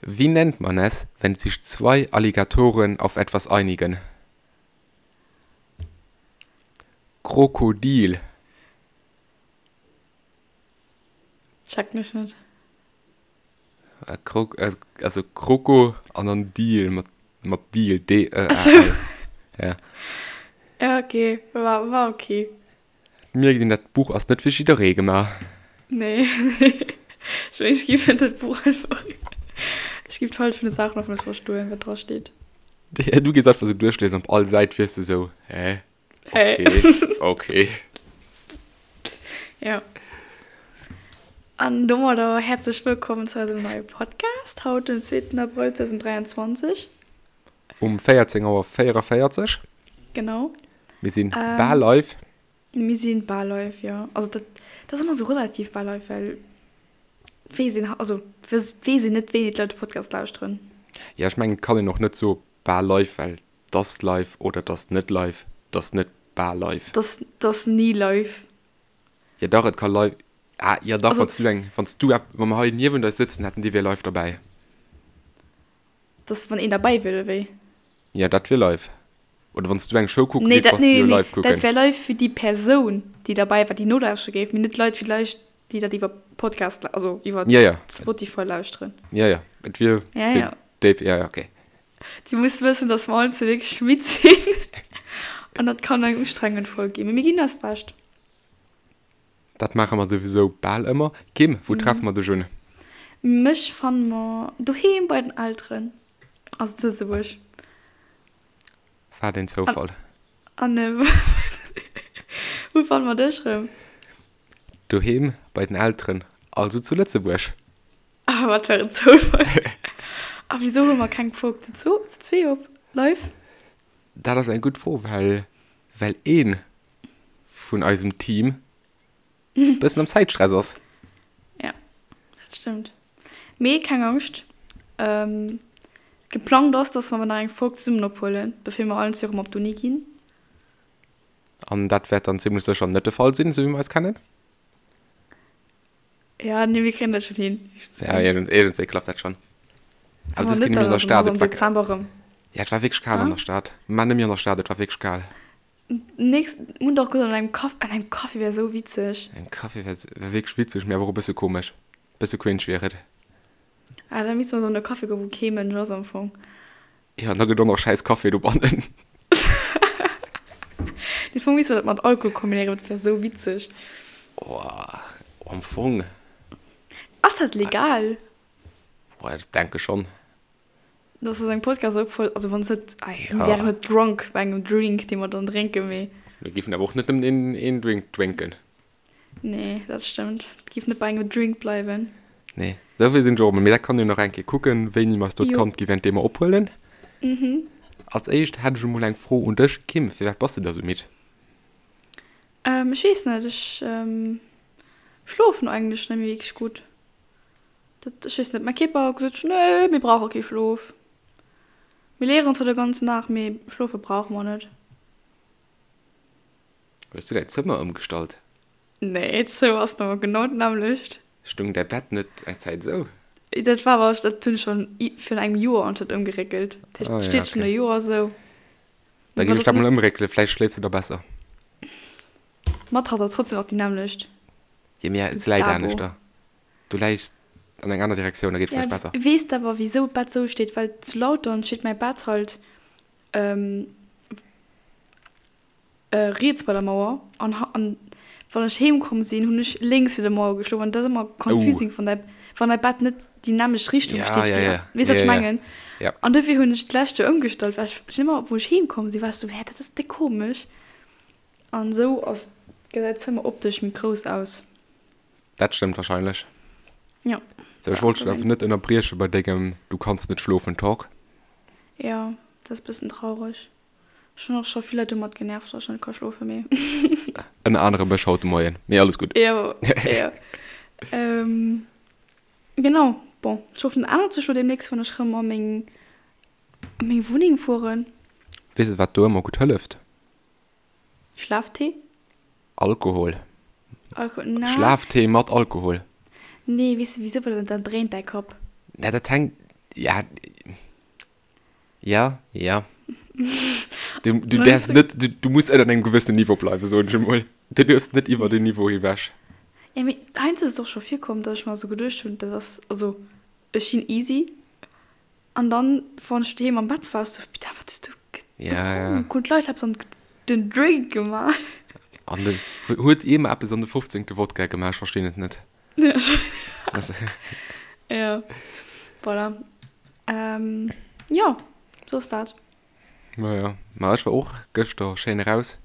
Wie nennt man es, wenn sich zwei Alligatoren auf etwas einigen? Krokodil. Checken ech net. Also Kroko an dann Deal mat, mat Deal, D-E-A-L. Ja. Ja, okay. War, war okay. Mierkt een, dat Buch ass net fir jidderee gemaach. Nee, nee. Ech mengen, ech géif dat Buch einfach, ech géif d'Hallschent vun de Saachen einfach net verstoen, wat dra steet. Du gees einfach sou duerchliesen, op all Säit wiers de sou, hä? Hä? Okay, okay. Ja. An domadder häerzlech wëllkommen zu eisem neie Podcast, haut den zweeten Abrëll 2023. Um 14 Auer 44. Genau. Mir sinn bal live. Mir sinn bal live, jo. Also dat, dat ass ëmmer sou relativ bal live, well et weess een, also et weess een net, wéini d'Leit de Podcast lauschteren. Jo, ech mengen, et kann een och net soe bal live, well 't ass live oder 't ass net live, 't ass net bal live. 't ass, 't ass ni live. Jo dach, et ka live, ah jo dach, wann s du eng, wann s du ep, wa mer hei niewent eis sëtzen hätten, déi wier live derbäi. Dass wann een derbäi wier, oder wéi? Jo, dat wier live. Oder wann s du eng Show kucke gees, bass du jo live kucken. Nee, dat wär live fir déi Persoun, déi derbäi war, déi nolauschtere géif, mee net d'Leit villäicht, déi dat iwwer Podcast, also iwwer Spotify lauschteren. Jo, jo, et wier fir déi, jo, jo, okay. Dir musst wëssen, dass mer allen zwee wierklech midd sinn an dat kann eng ustrengend Folg ginn, mee mir ginn eist Bescht. Dat maache mer souwisou bal ëmmer. Kim, wou treffe mer dech un? Mech fanne mer doheem bei den Elteren, also zu Lëtzebuerg. Wat een Zoufall. An wou fanne mer dech rëm? Doheem bei den Elteren, also zu Lëtzebuerg. Ah, wat fir en Zoufall. A wisou hu mer keng Folg zu zwee op live? Dat ass eng gutt Fro, well well ee vun eisem Team e bëssen am Zäitstress ass. Ja, dat stëmmt. Mee keng Angscht, geplangt ass, dass mer nach eng Folg zesummen ophuelen, bevir mer allen zwee erëm op d'Uni ginn. An dat wäert dann zimmlech sécher net de Fall sinn, esou wéi mer eis kennen. Ja, nee, mir kréien dat schon hin. Ja, iergendswéi klappt dat schon. Awer dës Kéier net méi an der Stad. Am Dezember erëm. Ja, et war wierklech kal an der Stad. Mä net méi an der Stad, et war wierklech kal. Nächst, mir hunn dach gesot, an engem Café, an engem Café wär esou witzeg. Engem Café wär, wär wierklech witzeg, mee awer och e bësse komesch. Bësse cringe wier et. Ah, da misste mer esou an e Café goen, wou kee Mënsch ass am Fong. Jo, an da gëtt och nach schäiss Café dobannen. Am Fong misste mer dat mat Alkohol kombinéieren, dat wär esou witzeg. Oh, am Fong. Ass dat legal? Boah, ech denke schonn. Dass ass engem Podcast opgefall, also wann s net, mir wären net drunk bei engem Drink, dee mer dann drénken, mee. Mir géifen awer och net nëmmen een, een Drink drénken. Nee, dat stëmmt. Et géif net bei engem Drink bleiwen. Nee, esou vill sinn ech och emol. Mee dat kann een nach eng Kéier kucken, wéini mer eis do d'Kand gi während deem mer ophuelen. Als éischt hätt ech emol eng Fro un dech, Kim, Firwat bass de da sou midd? Ech weess net, ech schlofen eigentlech net méi wierklech gutt. Dat, ech weess net, mäi Kierper huet gesot, nee, mir brauche kee Schlof. Mir léieren zwar de ganzen Dag, mee schlofe brauche mer net. Hues du däin Zëmmer ëmgestallt? Nee, d'Zëmmer ass nach genau d'nämmlecht. Stung däi Bett net eng Zäit esou? Dat war awer, dat hunn ech schonn virun engem Joer anscheinend ëmgeréckelt. Dat heescht, et steet schonn e Joer esou. Da ginn ech dat mol ëmréckelen, vläicht schléifs de da besser. D'Matrass ass trotzdem nach déi nämmlecht. Jo, mee se läit aneschter. Du läis an eng aner Direktioun, da geet vläicht besser. Weess de awer wisou d'Bett esou steet? Well zu Lautern steet mäi Bett halt riets bei der Mauer an an wann ech heem komm sinn, hunn ech lénks fir der Mauer geschlof an dat ass ëmmer confusing, wann däi wann däi Bett net déi nämmlecht Richtung steet wéi ja weess wat ech mengen? An dofir hunn ech d'lescht Joer ëmgestallt, well ech ëmmer wou ech heem komm sinn, war ech sou hä dat ass déck komesch an esou ass gesäit d'Zëmmer optesch méi grouss aus. Dat stëmmt wahrscheinlech. Jo. Sou, ech wollt dech awer net ënnerbrieche bei dengem Du kanns net schlofen Talk. Jo, dat ass bëssen traureg. Ech hunn och scho vill Leit domat genervt, dass ech net ka schlofen, mee. Ënner anerem mech haut de Moien, mee alles gutt. Jo, jo. Genau, bon, ech hoffen, dat ännert sech lo deemnächst, wann ech rëm a meng, a meng Wunneng fueren. Weess de, wat do ëmmer gutt hëlleft? Schlaftee? Alkohol. Alkohol, na. Schlaftee mat Alkohol. Nee, weess de wisou? Well dann dréint däi Kapp. Na, dat hänkt. Ja, ja, ja. Du, du däerfs net, du, du muss ënner engem gewëssenen Niveau bleiwen, soen ech emol. Du duerfs net iwwer den Niveau ewech. Ja, mee heiansdo ass et och scho virkomm, datt ech mer esou geduecht hunn, dat ass, also ech sinn easy. An dann, wann ech doheem am Bett war, sou, Putain, wat hues du gedronk? Hunn d'Leit eppes an den Drink gemaach? An den, huet ee mer eppes an de fofzéngte Wodka gemaach? Ech verstinn et net. Ja, voilà. Jo, sou ass dat. Ma jo, ma ech war och gëschter schéin eraus.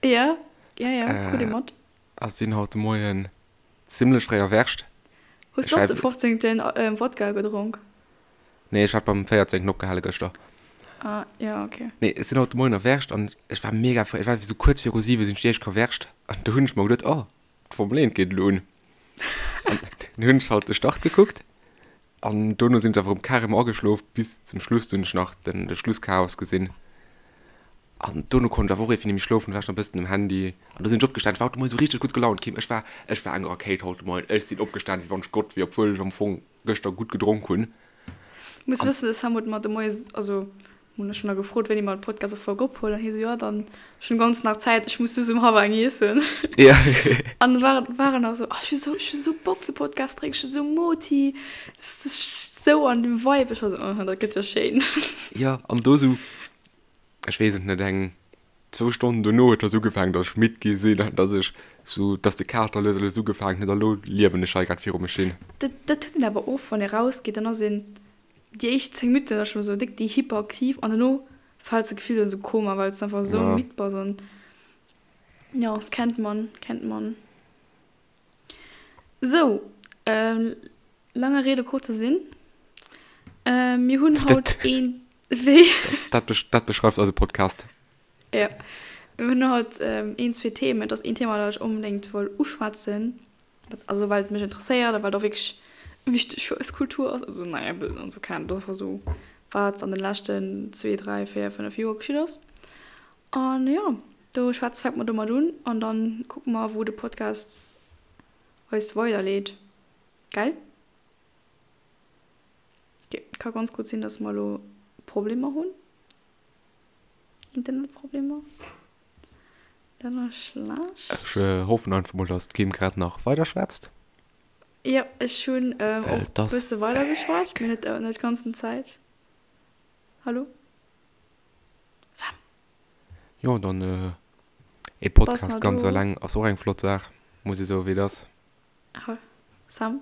Ja, ja, ja, krut ee mat. A sinn haut de Moien Zimlech fréi erwächt. Hues du och de 15. Wodka gedronk? Nee, ech hat beim 14. Opgehale gëschter. Ah, ja, ok. Nee, ech sinn haut de Moien erwächt an ech war mega fréi, ech war esou kuerz viru 7 sinn ech déi éischt erwächt an do hunn ech mer geduet, oh, d'Formel 1 geet elo un. An dunn hunn ech halt de Start gekuckt an dono sinn ech awer erëm carrément ageschlof bis zum Schluss, do hunn ech nach den de Schlusschaos gesinn. An dono konnt ech awer och iergendwéi net méi schlofen, war ech nach e bëssen um Handy. An du sinn ech opgestan, ech war haut de Moien esou richteg gutt gelaunt, Kim. Ech war, ech war eng Rakéit haut de Moien. Ech sinn opgestan, wéi wann ech Gott wier, obwuel ech am Fong gëschter gutt gedronk hunn. Du muss wëssen, de Sam huet mer de Moie, also hunn ech nach gefrot, wéini mer d'Podcast-Folg ophuelen, an hie sou, jo dann, ech hunn ganz nach Zäit, ech muss just um hallwer eng iessen. Ja. An da war, war en nach esou, oh ech hu sou, ech hu sou Bock de Podcast drécken, ech hu sou Moti, dat ass sou an dem Vibe. Ech war sou, oh, dat gëtt jo schéin. Jo, an do sou ech weess et net, eng zwou Stonnen dono huet das ugefaangen, dass ech midd gi sinn an dass ech sou, dass de Kater lues a lues ugefaangen huet a lo liewen ech hei grad viru mech hin. Dat, dat huet een awer och, wann ee rausgeet, dann ass een déi éischt 10 Minutten ass scho sou déck déi hyperaktiv an dono fäls de gefillt an sou Koma, well s de einfach sou midd bass an jo, kennt man, kennt man. Sou, Langer Rede, kurzer Sinn, mir hunn haut een, wéi? Dat beschreift eise Podcast. Jo, mir hunn haut een, zwee Themen. Et ass een Thema, dat ech onbedéngt wëll uschwätzen, also well et mech interesséiert a well et och wierklech wichteg fir eis Kultur ass. Also naja, also keng Ahnung, et ass einfach esou, wat an de leschten zwee, dräi, véier, fënnef Joer geschitt ass. An jo, do schwätz, fänke mer domat un an dann kucke mer, wou de Podcast eis weiderleet. Gell? Ok, ka ganz gutt sinn, dass mer elo Problemer hunn. Internetproblemer. Dat ass schlecht. Ech hoffen einfach mol, dass d'Kim grad nach weider schwätzt. Jo, ech hunn och e bësse weider geschwat, mee net net d'ganzen Zäit. Hallo? Sam? Jo, dann ee Podcast ganz eleng ass och eng flott Saach, muss ee soen, wéi et ass. Ha, Sam?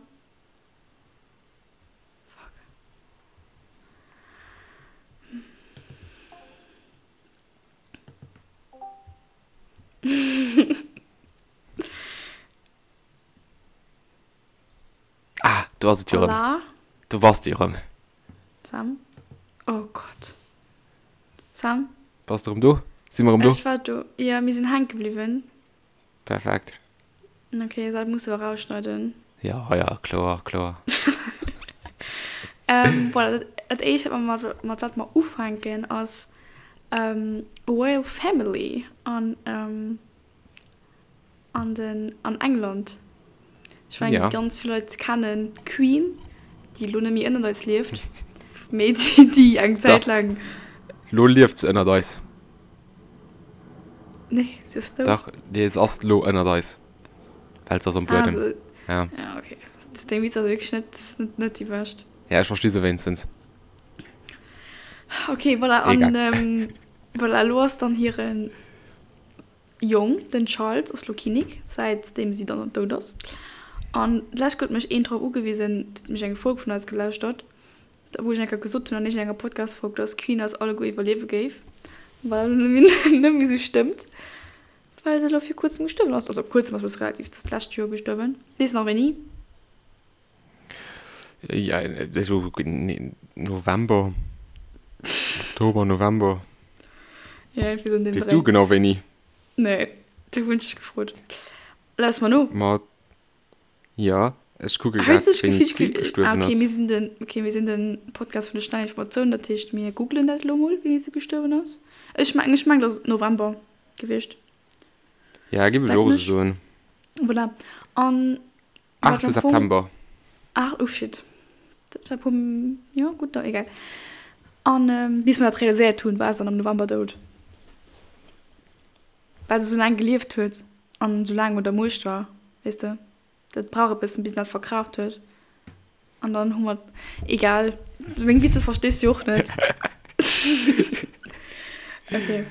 Fuck. Ah, do ass et jo erëm. Hola. Do bass de jo erëm. Sam? Oh Gott. Sam? Bass de erëm do? Si mer erëm do? Ech war do. Jo, mir sinn hänke bliwwen. Perfekt. Ok, dat muss de erausschneiden. Ja, ja, kloer, kloer. Ähm, voilà, dat, dat éischt, wat mer mat, mat wat mer ufänken, ass ähm, Royal Family an, ähm, an den, an England. Ech mengen, Ja. ganz vill Leit kennen d'Queen, déi elo net méi ënnert eis lieft, mee déi, déi eng Zäit Dach. laang. Lo lieft se ënnert eis. Nee, se ass dout. Dach, nee, se ass lo ënnert eis. Well se ass am Ah, Buedem. se, Ja. ja, okay. Deng Witzer si wierklech net, net, net déi bescht. Ja, ech versti se wéinstens. Okay, voilà, an Egal. ähm, voilà, elo ass dann hiren Jong, den Charles, ass lo Kinnek, säitdeem si dann dout ass. An d'lescht huet mech een drop ugewisen, huet mech eng Folg vun eis gelauschtert, wou ech eng Kéier gesot hunn an iergendenger Podcast-Folg, dass d'Queen eis alleguer iwwerliewe géif, wat elo net méi esou stëmmt, well se elo vir kuerzem gestuerwen ass. Also kuerzem ass bësse relativ, se ass d'lescht Joer gestuerwen. Weess nach wéini? Ja, esou November, Oktober, November. Ja, irgendwie so in dem Weess du genau wéini? Nee, du hunn ech dech gefrot. Laus mer no. Ma Jo, ech kucke grad wéini d'Queen gestuerwen ass. Okay, mir sinn den, okay, mir sinn den Podcast vun de schnellen Informatiounen, dat heescht mir googlen dat elo mol, wéini se gestuerwen ass. Ech mengen, ech mengen, et ass November gewiescht. Ja, giff ech och esou soen. Voilà. An 8. September. Ach, oh shit. Dat war puer, jo gutt, da egal. An bis mer dat realiséiert hunn, war se dann am November dout. Well se esou laang gelieft huet an esou laang un der Muecht war, weess de. Dat brauch e bëssen, bis en dat verkraaft huet. An dann hu mer, egal, meng Witzer verstees du jo och net. Okay.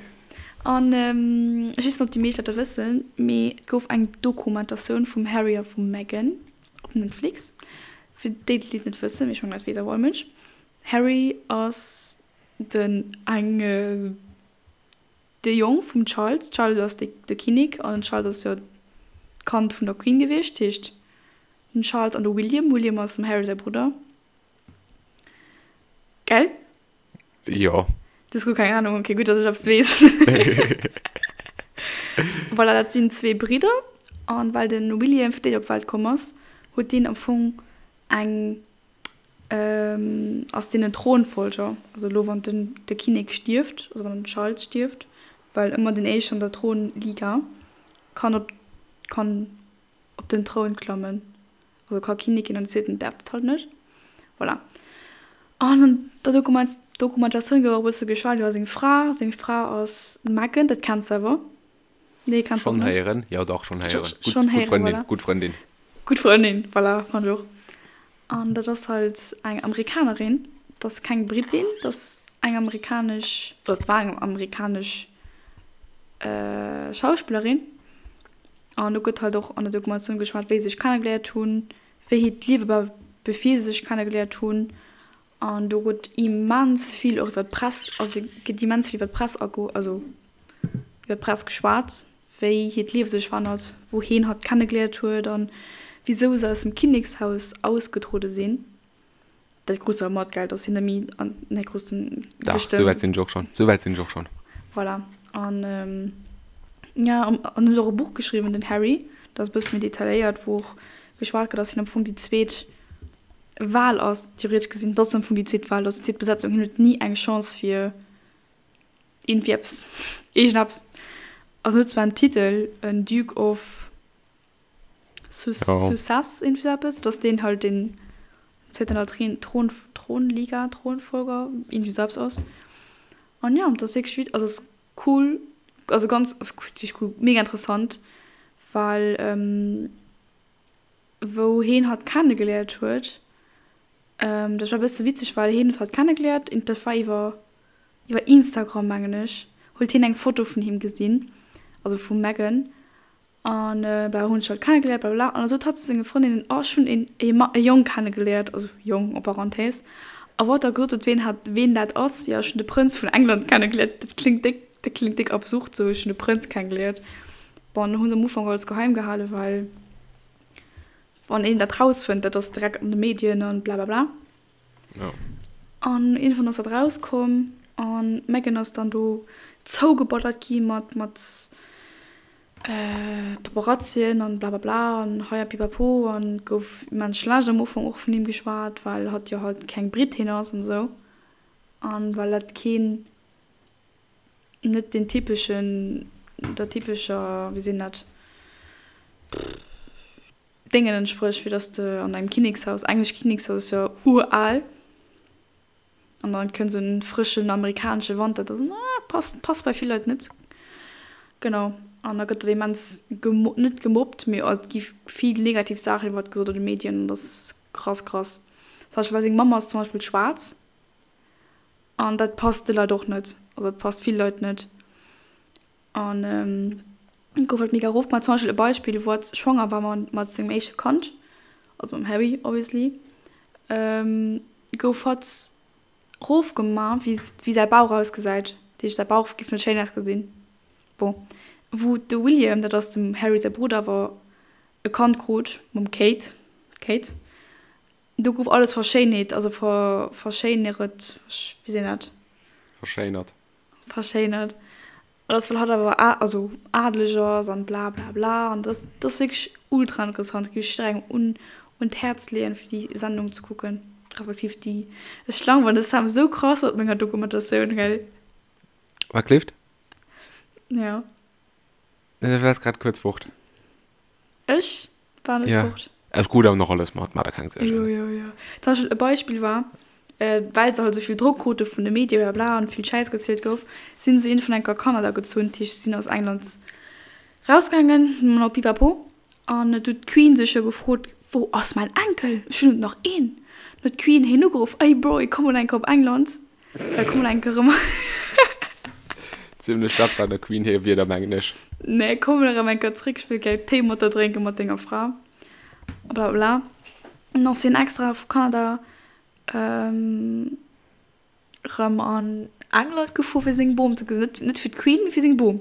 An ech weess net, ob déi meescht dat da wëssen, mee et gouf eng Dokumentatioun vum Harry a vum Meghan op Netflix. Fir déi, déi et net wëssen, mee ech mengen, dat weess awer all Mënsch, Harry ass den eng, De Jong vum Charles, Charles ass de Kinnek an den Charles ass jo d'Kand vun der Queen gewiescht, heescht den Charles an de William, William ass dem Harry säi Brudder. Gell? Jo. Du hues guer keng Ahnung, okay, gutt, dass ech eppes weess. Voilà, dat sinn zwee Bridder an well de William fréi op d'Welt komm ass, huet deen am Fong eng Ass deen en Thronfolger? Also elo wann den de Kinnek stierft, also wann den Charles stierft, well ëmmer den éischten an der Thronliga kann op kann op den Troun klammen, also ka Kinnek ginn an den zweeten däerf dat halt net. Voilà. An an der Dokument Dokumentatioun gouf och e bësse geschwat iwwer seng Fra. Seng Fra ass d'Meghan, dat kenns de awer. Nee, kenns de och net? Schonn héieren, jo dach schonn héieren. Gutt gutt Frëndin, voilà. Gutt Frëndin. Gutt Frëndin, voilà, fand ech och. An dat ass halt eng Amerikanerin, dat ass keng Britin, dat ass eng amerikanesch, oder dat war eng amerikanesch Schauspillerin. An do gëtt halt och an der Dokumentatioun geschwat, wéi se sech kennegeléiert hunn, wéi hiert Liewe war, bevir se sech kennegeléiert hunn. An do gëtt immens vill och iwwer d'Press, also gëtt immens vill iwwer d'Press ago, also iwwer d'Press geschwat, wéi hiert Liewe sech verännert, wou heen hatt kennegeléiert huet an wisou se aus dem Kinnekshaus ausgetruede sinn. Dat krus de awer mat, gell, dass si net méi an, nee, krus de Dach, beschtëmmt. souwäit sinn ech och schonn, souwäit sinn ech och schonn. Voilà. An jo, an en huet och e Buch geschriwwen, den Harry, dat ass e bësse méi detailléiert, wou och geschwat gëtt, dass hien am Fong déi zweet Wal ass, theoretesch gesinn, dat ass am Fong déi zweet Wal, dat ass déi zweet Besetzung, hien huet ni eng Chance fir Iergendwéi eppes, iergendeppes. Also en huet zwar en Titel, en Duke of Sussex, iergendwéi sou eppes, dat ass deen halt, deen zäit an der Thron, Thronliga, Thronfolger, iergendwéi sou eppes ass. An jo, dat ass wierklech wit, also ass cool, also ganz, wierklech cool, mega interessant, well wou heen hatt kennegeléiert huet, dat war e bësse witzeg, well heen huet hatt kennegeléiert, dat war iwwer Iwwer Instagram, mengen ech, huet hien eng Foto vun him gesinn, also vum Meghan, an bla hunn sech halt kennegeléiert blablabla, an da sot hatt zu senge Frëndinnen, oh ech hunn een e Ma e Jong kennegeléiert, also Jong en parenthèse, a wou hatt da gesot huet ween hat ween dat ass, jo ech hunn de Prënz vun England kennegeléiert, dat kléngt déck dat kléngt déck absurd sou, ech hunn de Prënz kennegeléiert. Bon, hu se am Ufank alles geheim gehalen, well wann een dat rausfënnt, dat ass direkt an de Medien an blablabla. Ja. An iergendwann ass dat rauskomm an d'Meghan ass dann do zougeballert gi mat mat Paparazzien an blablabla an hei a pipapo an gouf immens schlecht am Ufank och vun him geschwat, well hatt jo halt keng Britin ass an esou an well dat keen net den typeschen der typescher wéi seet een dat Déngen entsprécht, fir dass de an engem Kinnekshaus, englescht Kinnekshaus ass jo ural, an dann kënnt esou en frëschen amerikanesche Wand, dat ass, passt, passt bei vill Leit net. Genau, an da gëtt dat immens gemo-, net gemobbt, mee et gi vill negativ Saachen iwwert gesot an de Medien, an dat ass krass, krass. Zum Beispill, well seng Mamm ass zum Beispill schwaarz, an dat passt de Leit och net, also dat passt vill Leit net. An gouf halt mega erof gemaach. Zum Beispill e Beispill, wou hatt schwanger war mat sengem éischte Kand, also mam Harry obviously, gouf hatt erof gemaach, wéi wéi säi Bauch ausgesäit. Dat heescht, säi Bauch géif net schéin ausgesinn. Bon, wou de William, dat ass dem Harry säi Brudder, awer e Kand krut mam Kate, Kate, do gouf alles verschéinheet, also ver verschéineret, wéi seet een dat? Verschéinert. Verschéinert. An dass well hatt awer a also adeleg ass an bla bla bla an dass dass wierklech ultra interessant. Géif ech jidderengem un un d'Häerz leeën fir déi Sendung ze kucken, respektiv déi ech langweilen de Sam esou krass mat menger Dokumentatioun gell. Wat kleeft? Ja. Du waars grad kuerz fort. Ech war net Ja. fort. Ech krut awer nach alles mat, maach der keng Suergen. Jo, jo, jo. Zum Beispill e Beispill war, well se halt esou vill Drock krute vun de Medie bla bla an vill Schäiss gezielt gouf, sinn se iergendwann eng Kéier a Kanada gezunn. Dat heescht, se sinn aus England rausgaangen, no Pipapo. An et huet d'Queen sech jo gefrot, Wou ass mäin Enkel? Ech hunn net nach een. Dann huet d'Queen hien ugeruff, Ey Bro, komm mol eng Kéier op England, komm mol eng Kéier erëm. Zimlech dat war der Queen hir Wierder, mengen ech. Nee, komm mol erëm eng Kéier zréck, ech wëll gär Téi mat der drénken, mat denger Fra. A bla bla bla. An dann ass hien extra vu Kanada erëm an England gefuer, fir seng Bom ze gesinn. Net, net fir d'Queen, mee fir seng Bom.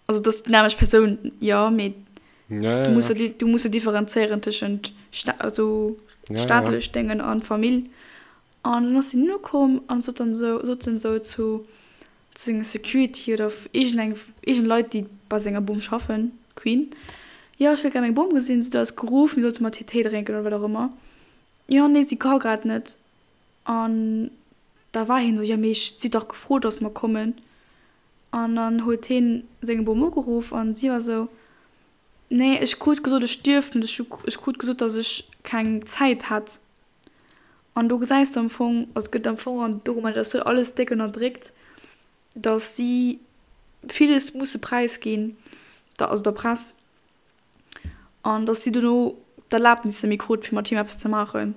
Also dat ass déi nämmlecht Persoun, jo, mee du muss jo, du muss jo differenzéieren tëschent Sta also staatlech Déngen an Famill. An dann ass hien ukomm an sot dann esou, sot en esou zu zu senge Security oder iergendeng, iergend Leit, déi bei senger Bom schaffen, Queen, jo, ech wëll gär meng Bom gesinn. Si huet eis geruff, mir sollte mat hir Téi drénken oder wat och ëmmer. Jo, nee, si ka grad net. An da war hien esou, jo, mee ech, si huet dach gefrot, dass mer kommen. An dann huet hien seng Bom ugeruff an si war esou, Nee, ech krut gesot, ech dierft net, ech krut gesot, dass ech keng Zäit hätt. An do gesäis de am Fong, also gëtt am Fong an der Dokumentatioun alles déck ënnerdréckt, dass si villes musse präisginn, also der Press, An dass si dono d'Erlaabnis net méi krut, fir mat him eppes ze maachen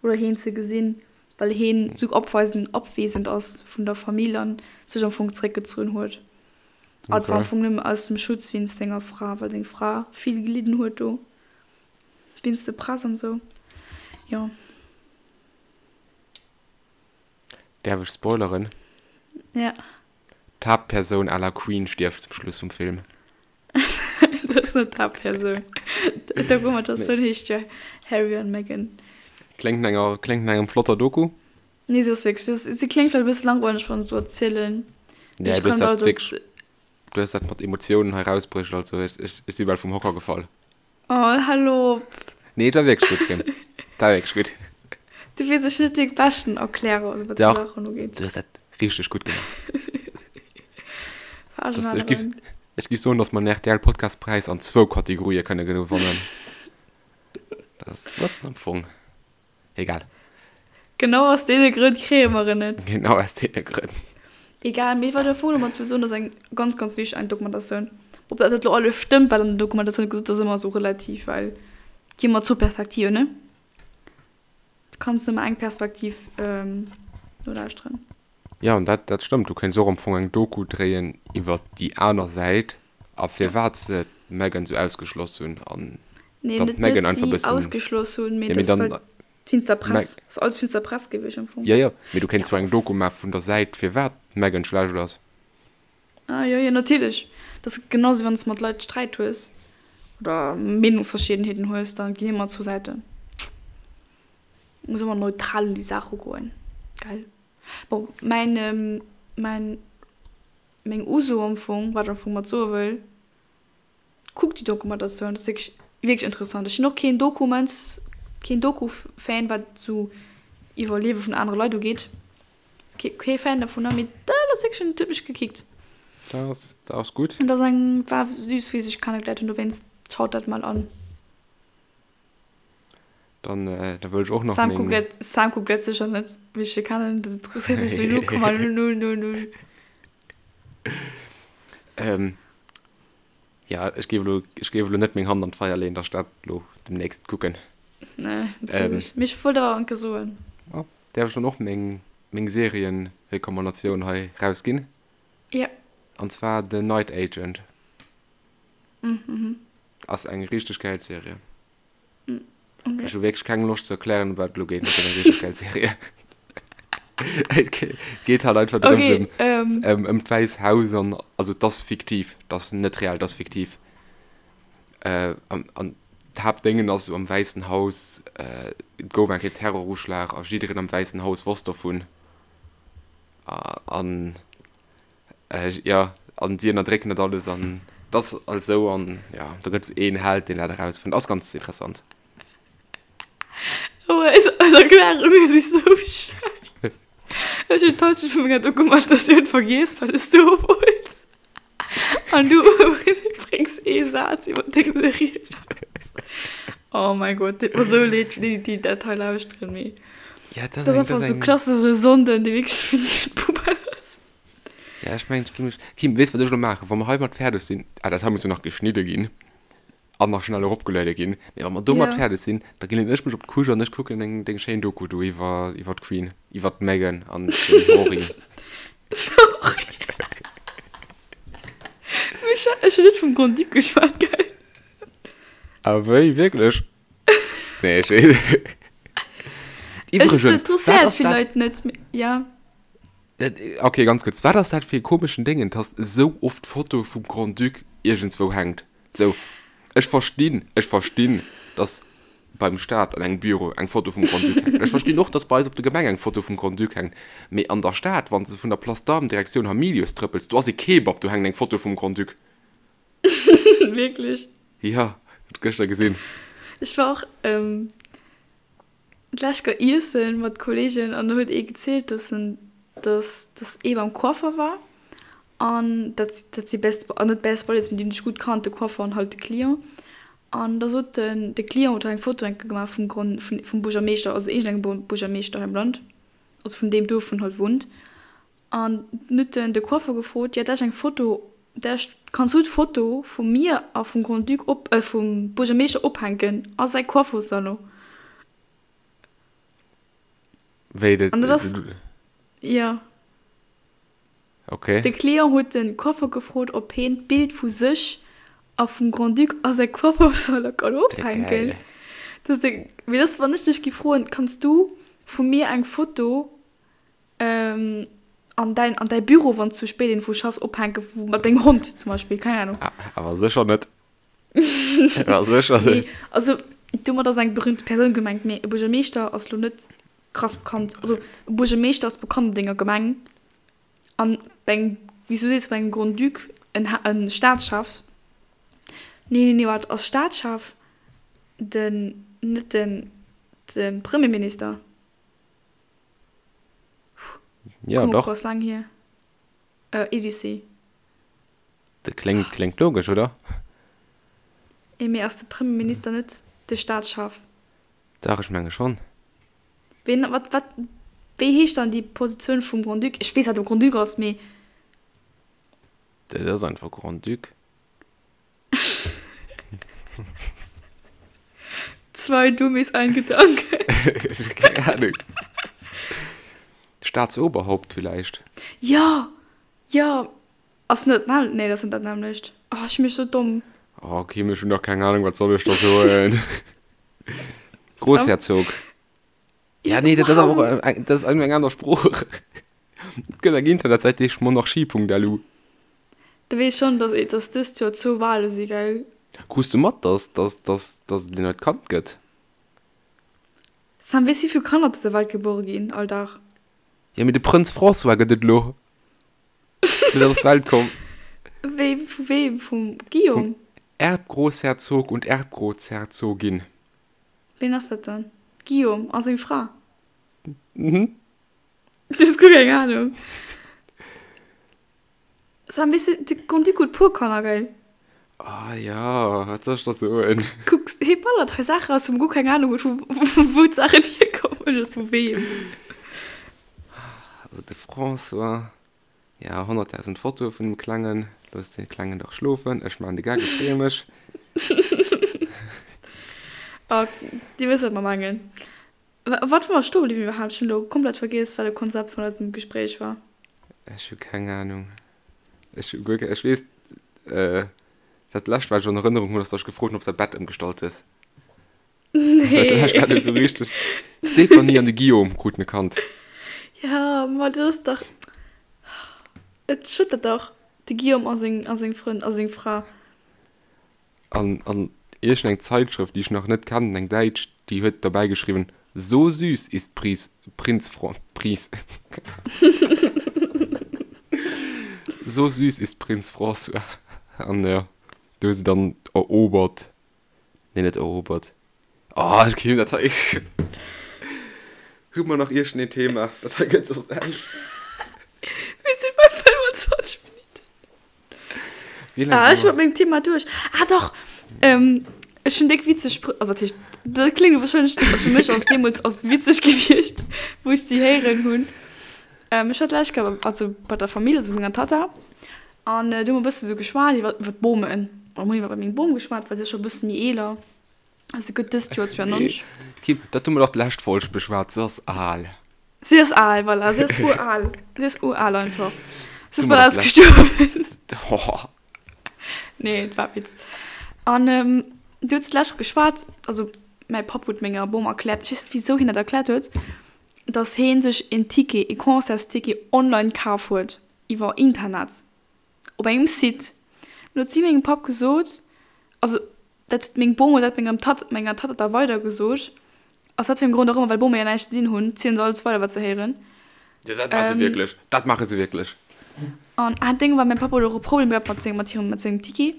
oder hien ze gesinn, well hien esou opweisend, abwesend ass vun der Famill an sech am Fong zeréckgezunn huet. A et war am Fong nëmme aus dem Schutz wéinst senger Fra, well seng Fra vill gelidden huet do wéinst der Press an esou. Jo. Däerf ech spoileren? Ja. D'Haaptpersoun à la Queen stierft zum Schluss vum Film. Dat ass net d'Haaptpersoun. D'Dokumentatioun heescht jo Harry an Meghan. Kléngt no enger, kléngt no engem flotter Doku. Nee, se ass wierklech, se, se kléngt vläicht e bësse langweileg, wann ech esou erzielen. Nee, du hues dat wierklech, du hues dat mat Emotiounen hei rausbruecht, also ech, ech, ech si bal vum Hocker gefall. Oh, hal op! Nee, et war wierklech gutt, Kim. Et war wierklech gutt. Du weess, ech sinn net dee beschten Erklärer, also wat esou Saachen ugeet. Du hues dat richteg gutt gemaach. Das, ech giff, ech giff soen, dass mer den RTL Podcastpräis an zwou Kategorië kënne gewannen. Dat ass e bëssen am Fong egal. Genau aus deene Grënn kréie mer en net. Genau aus deene Grënn. Egal, mee wat ech am Fong domat wëll soen, ass eng ganz, ganz wichteg eng Dokumentatioun. Ob dat elo alles stëmmt, wat an der Dokumentatioun gesot ass, ass ëmmer esou relativ, well et gi ëmmer zwou Perspektiven, ne? Du kanns nëmme eng Perspektiv nolauschteren. Jo, an dat, dat stëmmt. Du kéints och am Fong eng Doku dréien iwwer déi aner Säit a firwat se d'Meghan esou ausgeschloss hunn an Nee, dann net, d'Meghan net einfach si bëssen. ausgeschloss hunn, mee Jo, mee dass dann. well d'finster Press, ass alles finster Press gewiescht am Fong. Jo, jo, mee du kéints zwar eng Doku maache vun der Säit firwat d'Meghan schlecht ass. Ah jo, jo, natierlech. Dat ass genau sou, wann s de mat Leit Sträit hues oder Meenungsverschiddenheeten hues, da ginn ëmmer zwou Säiten. Muss ëmmer neutral un déi Saach ugoen, gell? Bon, mäin, mäin, meng Uso am Fong, wat ech am Fong mat soe wëll, Kuckt déi Dokumentatioun, dat ass wierklech, wierklech interessant. Ech sinn och keen Dokuments, keen Doku-Fan, wat esou iwwer Liewe vun anere Leit ugeet. Kee, kee Fan dovunner, mee dat ass wierklech, dat huet mech gekickt. Dat ass, dat ass gutt. Dat ass eng, war süß, wéi se sech kennegeléiert hunn, dowéinst schaut dat mol an. Dann, da wëll ech och nach Sam kuckt meng. dat, Sam kuckt dat sécher net, wéi ech e kennen, dat interesséiert sech sou 0,000. Ähm, ja, ech géif elo, ech géif elo net meng Hand an d'Feier leeën, datt ech dat elo demnächst kucken. Nee, dat weess ech. Mee ech wollt awer enke soen. Oh, däerf ech dann och meng, meng Serienrecommandatioun hei rausginn? Ja. An zwar The Night Agent. Ass eng richteg gäil Serie. Okay. Ech hu wierklech keng Loscht ze erklären, ëm wat et elo geet, mee et ass eng richteg gäil Serie. Et geet halt einfach drëms Okay, ëm, ähm, ëm, ëm d'Wäiss Haus an, also et ass fiktiv, et ass net real, et ass fiktiv. Äh, an, an d'Haaptdéngen ass esou am Wäissen Haus, äh, et gouf eng Kéier Terroruschlag a jiddereen am Wäissen Haus wosst dovun. An Jo, an si ënnerdrécken dat alles an dat ass alles esou an jo, do gëtt et een Held, deen dat erausfënnt. Ass ganz interessant. Oh, eis, eis Erklärunge si sou schäiss. Ech hunn d'Halschent vu menger Dokumentatioun vergiess, wat ech soe wollt. An du bréngs ee Saz iwwer deng Serie eraus. Oh mein Gott, deet mer sou leed fir déi, déi dat hei lauschteren, mee Ja, dat dat ass ass eng, einfach dat ass sou eng. klassesche Sonnden, dee wierklech fir d'Poubelle ass. Ja, ech mengen, ech gi mech. Kim, weess wat ech elo maachen? Wa mer heimat fäerdeg sinn, ah, dat hei muss jo nach geschnidde ginn an nach schnell eropgeluede ginn, mee wa mer domat Ja. fäerdeg sinn, da ginn ech mech op d'Couche an ech kucken deng, deng schéin Doku do iwwer, iwwer d'Queen, iwwer d'Meghan an den Henri. Ech ech hunn net vum Grand-Duc geschwat, gell? Ah wéi, wierklech? Nee, ech weess. Ech Iwwregens, wat interesséiert ass vill dat? Leit net, mee ja. Ok, ganz kuerz, wat ass dat fir e komeschen Déngen, dass esou oft d'Foto vum Grand-Duc iergendswou hänkt? Sou, ech verstinn, ech verstinn, dass beim Staat an engem Büro eng Foto vum Grand-Duc hänkt. Ech verstinn och, dass bei eis op der Gemeng eng Foto vum Grand-Duc hänkt. Mee an der Stad, wann s de vun der Place d'Armes Direktioun Hamilius trëppels, do ass e Kebab, do hänkt eng Foto vum Grand-Duc. Wierklech? Jo, huet gëschter gesinn. Ech war och d'lescht Kéier iessen mat Kollegen an do huet ee gezielt, dass en, dass, dass ee beim Coiffer war an dat, dat si best, net best buddies, mee déi hunn sech gutt kannt, de Coiffer an halt de Client. An da sot den, de Client huet eng Foto enke gemaach vum Gron, vun, vum Buergermeeschter, also iergendengem Buergermeeschter hei am Land, also vun deem Duerf, wou en halt wunnt. An dunn huet en de Coiffer gefrot, jo dat ass eng Foto, dat kanns du d'Foto vu mir a vum Grand-Duc op, vum Buergermeeschter ophänken a säi Coiffersalon. Wéi dat? An dat ass, jo. Okay. De Client huet de Coiffer gefrot, ob heen d'Bild vu sech a vum Grand-Duc a säi Coiffersalon kann ophänken. Dat ass de, mee dat ass, wann ech dech gi froen, kanns du vu mir eng Foto An däin, an däi Büro, wann s du spéit iergendwou schaffs, ophänken, wou mat dengem Hond zum Beispill, keng Ahnung. Awer sécher net. Awer sécher net. Nee, also domat ass eng berühmte Persoun gemengt, mee e Buergermeeschter ass lo net krass bekannt. Also e Buergermeeschter ass bekannt an denger Gemeng an bei engem, wéi s du sees, bei engem Grand-Duc, en Ha-, en Staatschef, nee, nee, nee, waart, ass Staatschef den, net den, de Premierminister? Ja, Komm, dach. ass laang hier. Äh, Elysée. Dat kléngt, kléngt logesch, oder? Eh, mee ass de Premierminister net de Staatschef? Dach, ech menge schonn. Ween, wat, wat, wéi heescht dann déi Positioun vum Grand-Duc? Ech weess, wat e Grand-Duc ass, mee. Dat ass einfach Grand-Duc. Zwei Dummies, ein Gedanke. Keng Ahnung. Staatsoberhaupt villäicht? Jo, jo. Ass net dat, nee, dat ass net dat nämmlecht. Oh, ech mech sou domm. Oh, Kim, ech hunn dach keng Ahnung, wat soll ech da soen? Großherzog. Ja, nee, dat ass awer och eng, dat ass eng aner Sprooch. Et gëtt eng Internetsäit, déi heescht monarchie.lu. Du weess schonn, dass dass dëst Joer zwou Wale si, gell? Krus du mat, dass dass dass dass et en neit Kand gëtt? Sam, weess wéi vill Kanner op dëser Welt gebuere ginn all Dag? Jo, mee de Prënz François gëtt et elo. Deen ass op d'Welt komm. Wéi, vu weem? Vum Guillaume? Vum Erbgroßherzog und Erbgroßherzogin. Ween ass dat dann? Guillaume a seng Fra? Mhm. Du hues guer keng Ahnung. Sam, weess de, de Grand-Duc huet puer Kanner, gell? Ah ja, wat soll ech da soen? Kuck, hie ballert hei Saachen raus, wou mer guer keng Ahnung hunn, vu wou d'Saachen hierkommen oder vu weem. Also de François, ja, 100.000 Fotoe vun dem Klengen. Looss de Klengen dach schlofen. Ech maachen de Gag, ech freeë mech. Oh, Dir wësst, wat mer mengen. Wat wou mer stoe bliwwen iwwerhaapt? Ech hunn elo komplett vergiess, wat de Konzept vun eisem Gespréich war. Ech hu keng Ahnung. Ech hu guer keng, ech weess, dat lescht wat ech an Erënnerung hunn, ass, datt ech gefrot hunn, ob s de dat Bett ëmgestallt hues. Nee. Dat lescht wat ech esou richteg, d'Stéphanie an de Guillaume kruten e Kand. Ja, ma dat ass dach, et schëttert dach, de Guillaume a seng, a seng Frënn, a seng Fra. An, an iergendeng Zeitschrëft, déi ech nach net kennen, eng däitsch, déi huet derbäi geschriwwen, So süß ist Pries, Prinz Fran, Pries, So süß ist Prinz François. An jo, do hu se dann erobert, nee, net erobert, oh, ech kritt dat hei, hu mer nach iergendeen Thema, dat hei gëtt soss näischt. Mir si bei 25 Minutten. Wéi laang Ah, si ech mer? mat mengem Thema duerch. Ah, dach! Ähm. Ech hunn déck witzeg Sprëch, also wat heescht, dat kléngt wahrscheinlech net, also fir mech ass deemools ass et witzeg gewiescht, wou ech si héieren hunn. Ech war d'lescht Kéier bei, also bei der Famill, also bei menger Tatta, an do hu mer e bësse sou geschwat iwwer, iwwer d'Bomen. An hunn iwwer meng Bom geschwat, well si ass scho e bësse méi eeler, also si gëtt dëst Joer 92. Kim, dat hu mer dach d'lescht Folg beschwat, se ass al. Si ass al, voilà, si ass ural, si ass ural einfach. Si ass bal ausgestuerwen. Nee, et war Witz. An du hues d'lescht geschwat, also mäi Papp huet menger Bom erkläert, ech weess net wisou hien dat erkläert huet, dass hee sech een Ticket, ee Concertsticket online kaf huet iwwer Internet op engem Site. Dann huet si mengem Papp gesot, also Dat huet meng Bom huet dat mengem Tatt, menger Tatta da weider gesot. Aus wat fir engem Grond och ëmmer, well Bome jo näischt ze dinn hunn, zielen se alles weider wat se héieren. Jo, dat maache se wierklech. Dat maache se wierklech. An ah Déng war, mäin Papp huet och e Problem gehat mat sengem, mat hirem, mat sengem Ticket.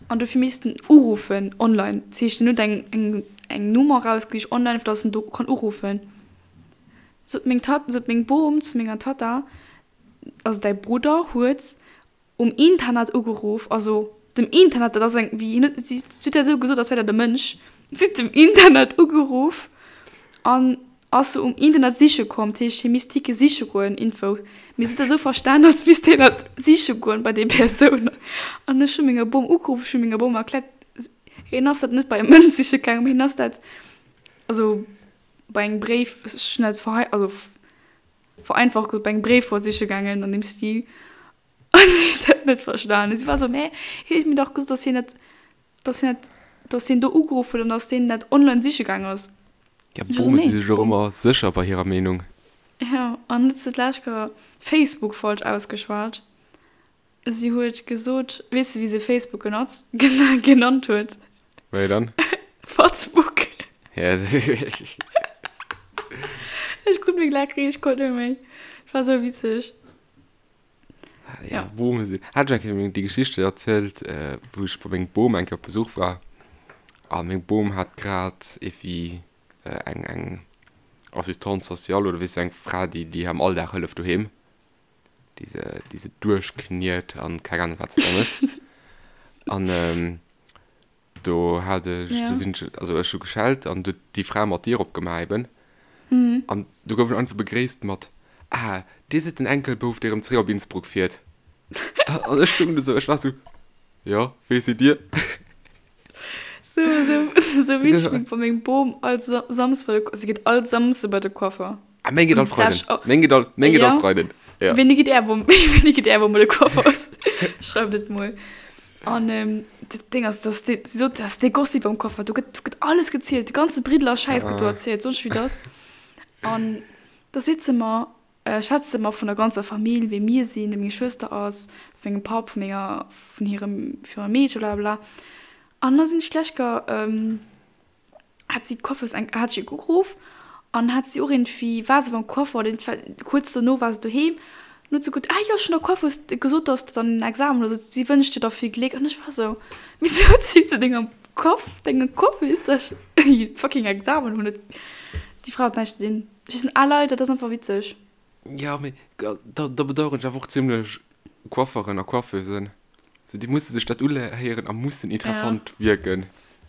An dofir misst en uruffen online. Dat heescht, en huet eng, eng, eng Nummer erausgesicht online, fir datt en do kann uruffen. Sot meng Tatt, sot meng Bom zu menger Tatta, also däi Brudder huet Um Internet ugeruff, also dem Internet, dat ass eng, wéi hien huet, si huet dat esou gesot, als wär dat e Mënsch, si huet dem Internet ugeruff an ass se um Internet siche komm, dat heescht hie misst Tickete siche goen, Info, mee si huet dat esou verstan, als misst hien dat siche goen bei déi Persoun an ech hu menger Bom ugeruff, ech hu menger Bom erkläert, hien ass dat net bei e Mënsch siche gaangen, mee hien ass dat, also bei engem Bréif, ech hunn dat verhei, also vereinfacht gesot, bei engem Bréif war siche gaangen an deem Stil. An si huet dat net verstanen. Si war esou, Mä hien huet mir dach gesot, dass hien dat, dass hien dat, dass hien do ugeruff huet an dass deen dat online siche gaang ass. Ja, Ech war esou, Bome si Nee, sech och Bom. ëmmer sécher bei hirer Meenung. Ja, an huet se d'lescht Kéier Facebook falsch ausgeschwat. Si huet gesot, weess de wéi se Facebook genotzt, genannt huet? Wéi dann? Fatzbook. Ja. Ech krut meng Laach riicht, ech konnt net méi. Et war sou witzeg. Ja, Bome sinn. Hat ech eng Kéier déi Geschichte erzielt, wou ech bei mengem Bom eng Kéier op Besuch war a meng Bom hat grad ewéi eng, eng Assistante sociale oder weess du, eng Fra, déi, déi am Alldag hëlleft doheem. déi se, déi se duerchkniet an keng Ahnung wat se da mécht. An ähm, do hat ech, ja. do sinn ech, also ech hu geschellt an du déi Fra mat d'Dier opgemaach eben. Mhm. An du gouf ech einfach begréisst mat, Ah, Dir sidd den Enkelbouf, dee rëm zréck op Innsbruck fiert. An ech stoung do sou, ech war sou, Jo, wee sidd Dir? Sou, sou, sou witzeg wéi bei mengem Bom all Samsde bei de, si geet all Samsde bei de Coiffer. Ah, meng geet all Freiden. Meng geet all, meng geet all Freiden. Ja. Wéini geet är Bom, wéini geet är Bom bei de Coiffer? Schreift et mol. An ähm, dat Ding ass, dass dee, si sot, dass dee Gossip beim Coiffer, do gëtt, do gëtt alles gezielt, de ganze Briddeler Schäiss gëtt do erzielt, sonst wéi dass. An da sitze mer, schwätze mer vun der ganzer Famill, wéi mir sinn, wéi meng Schwëster ass, vu mengem Papp, vu menger, vun hirem, vun hirem Meedche, blablabla. An da sinn ech d'lescht Kéier, hat si d'Coiffeuse eng, hat ech ugeruff an hat si och iergendwéi, war se beim Coiffer oder iergendwa kuerz dono war se doheem. An huet se gesot, ah jo, ech hunn der Coiffeuse gesot, dass de dann en Examen hues, also si wënscht dir da vill Gléck. An ech war esou, Wisou zitt se dengem Coiff, denger Coiffeuse, dass ech fucking Examen hunn? Déi Fra huet näischt ze dinn. Ech sinn al Leit, dat ass einfach witzeg. Jo, mee da bedaueren ech awer och zimlech Coifferen a Coiffeusen. So, déi musse sech dat uhéieren a mussen interessant wierken.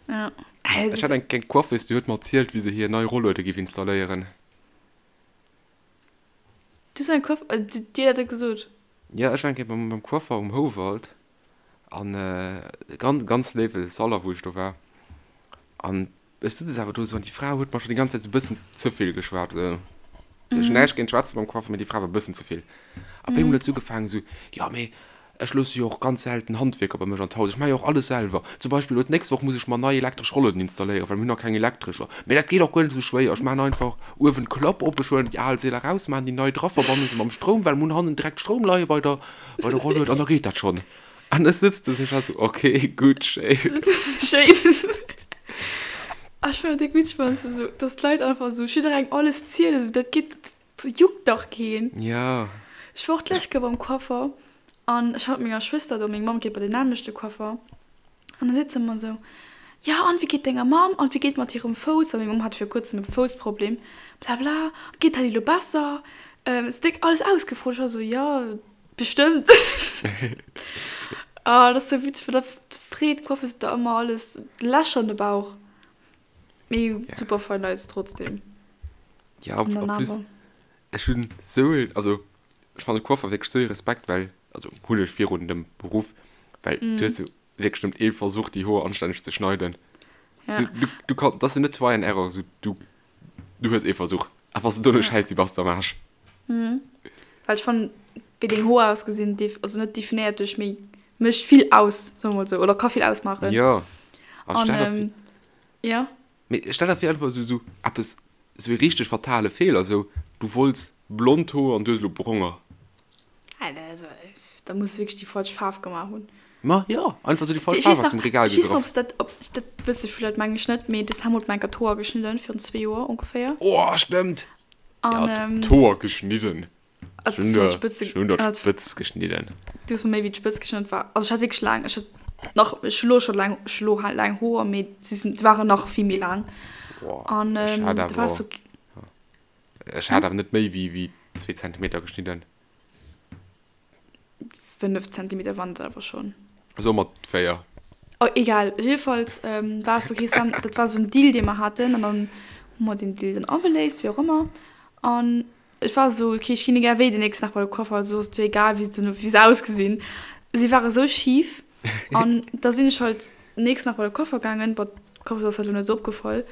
Ja. Ech hat eng eng Coiffeuse, déi huet mer erzielt, wéi se hir nei Rolluede giff installéieren. Du hues eng Coiffe, dir dat gesot? Jo, ech war eng Kéier beim beim Coiffer um Houwald an ganz ganz léiwe Salon, wou ech do war. An Ech sëtz awer do esou an déi Fra huet mer schon déi ganz Zäit esou bëssen ze vill geschwat. Esou. Ech hunn näischt géint d'Schwätze mam Coiffer, mee déi Fra war bëssen ze vill. A op eemol huet se ugefaangen esou, jo mee ech loosse jo och ganz selten Handwierker bei mech an d'Haus, ech maache jo och alles selwer. Zum Beispill elo d'nächst Woch muss ech mer nei elektresch Rollueden installéieren, well mir hunn nach keng elektrescher. Mee dat geet och guer net esou schwéier, ech maachen einfach uewen d'Klapp op, ech huelen déi al Seeler raus, maachen déi nei dra, verbanne se mam Stroum, well mir hunn hannen direkt Stroum leie bei der bei der Rollued an da geet dat schonn. An ech sëtz do sech so, ok, gutt, schéin. Schéin. Ech fannen et déck witzeg, wann s de sou, dass d'Leit einfach sou jidderengem alles zielen, sou dat geet, dat juckt dach keen. Ja. Ech war och d'lescht Kéier beim Coiffer an ech war mat menger Schwëster do, meng Mamm geet bei den nämmlechte Coiffer an da sitze mer sou, jo an wéi geet denger Mamm an wéi geet mat hirem Fouss, well meng Mamm hat vir kuerzem e Foussproblem, blabla, geet dat elo besser, se déck alles ausgefrot, ech war sou, jo. Bestëmmt. Ah, dat ass sou witzeg, well da. freet d'Coiffeuse der ëmmer alles Lächer an de Bauch. Mee super fein Leit trotzdem. Ja, en plus, ech hunn sou een, also ech fannen Coiffer wierklech sou ee Respekt, well, also hunn ech virun dem Beruff, well du hues jo wierklech nëmmen ee Versuch déi Hoer anstänneg ze schneiden. Ja. Du, du kann, dat ass jo net try and error, sou du, du hues ee Versuch a wann s de dono schäiss si bass de am Aarsch. Well ech fannen, wéi deng Hoer ausgesinn, def, also net definéiert dech, mee mécht vill aus, soe mer mol sou, oder ka vill ausmaachen. Jo, a stell der vir. Ja. Mee stell der vir einfach esou esou eppes, esou ee richteg fatale Feeler, esou du wollts blond Hoer an du hues elo bronger. Also da muss wierklech déi falsch Faarf gemaach hunn. Ma jo, einfach esou déi falsch Faarf aus dem Regal gegraff. Ech weess nach, ob dat, ob dat wësse vläit, meng ech net, mee de Sam huet mer enker d'Hoer geschnidden virun zwee Joer ongeféier. Oh stëmmt! An d'Hoer geschnidden. Ech hunn der, ech hunn der d'Spëtz geschnidden. Du hues mer méi wéi d'Spëtz geschnidden. Et war, also ech hat wierklech laang, ech hat nach, ech hu lo scho laang, ech hu lo laang Hoer, mee si sinn, se waren nach vill méi laang. Boah, An ech hat da war awer, so, ech hat awer net méi wéi, wéi zwee Zentimeter geschnidden. 5 Zentimeter waren dat awer schonn. Soe mer 4. Oh, egal. Jedenfalls ähm, war es okay, Sam, dat war so en Deal, dee mer haten, an dann hu mer den Deal dann ageléist, wéi och ëmmer. An ech war esou, okay, ech ginn egal wéi den nächsten Dag bei de Coiffer, also ass et jo egal, wéi se duerno, wéi se ausgesinn. Si ware sou schif an da sinn ech halt den nächsten Dag bei de Coiffer gaangen. Bon, d'Coiffeuse ass dat elo net esou opgefall,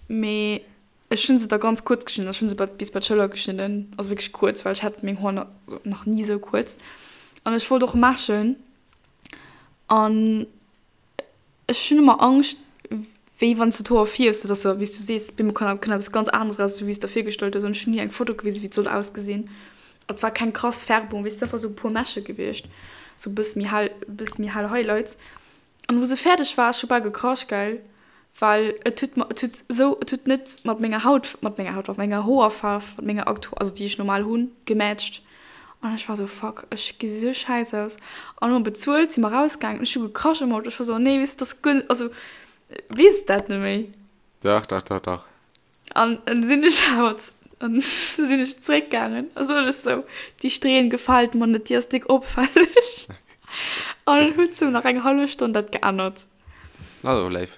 mee ech hunn se da ganz kuerz geschnidden. Ech hunn se bei, bis bei d'Schëller geschnidden, also wierklech kuerz, well ech hat meng Hoer nach ni esou kuerz. An ech wollt och Meschen an Ech hunn ëmmer Angscht, wéi wann s de d'Hoer fierfs, dat ass jo, wéi s du sees, op eemol kann kënnt eppes ganz aneres eraus, wéi s de der virgestallt hues. An ech hunn hir eng Foto gewisen, wéi et soll ausgesinn. Et war keng krass Färbung, weess de, einfach sou e puer Mäsche gewiescht, sou e bësse méi hell, e bësse méi hell Highlights. An wou se fäerdeg war, ech hu bal gekrasch, gell, well et huet mer, et huet esou, et huet net mat menger Haut, mat menger Haut, mat menger Hoerfaarf, mat menger aktu, also déi ech normal hunn, gematcht. An ech war sou, fuck, ech gesi sou schäiss aus. An hu mer bezuelt, si mer rausgaangen an ech hu gekrasch am Auto. Ech war sou, oh nee, weess de, dat ass guer net, also weess dat net méi. Dach, dach, dach, dach. An dann sinn ech awer, an sinn ech zréckgaangen a sot ech sou, déi Strähn gefält mer net, déi ass déck opfälleg. An dann huet se nach eng hallef Stonn dat geännert. Na, dat war léif.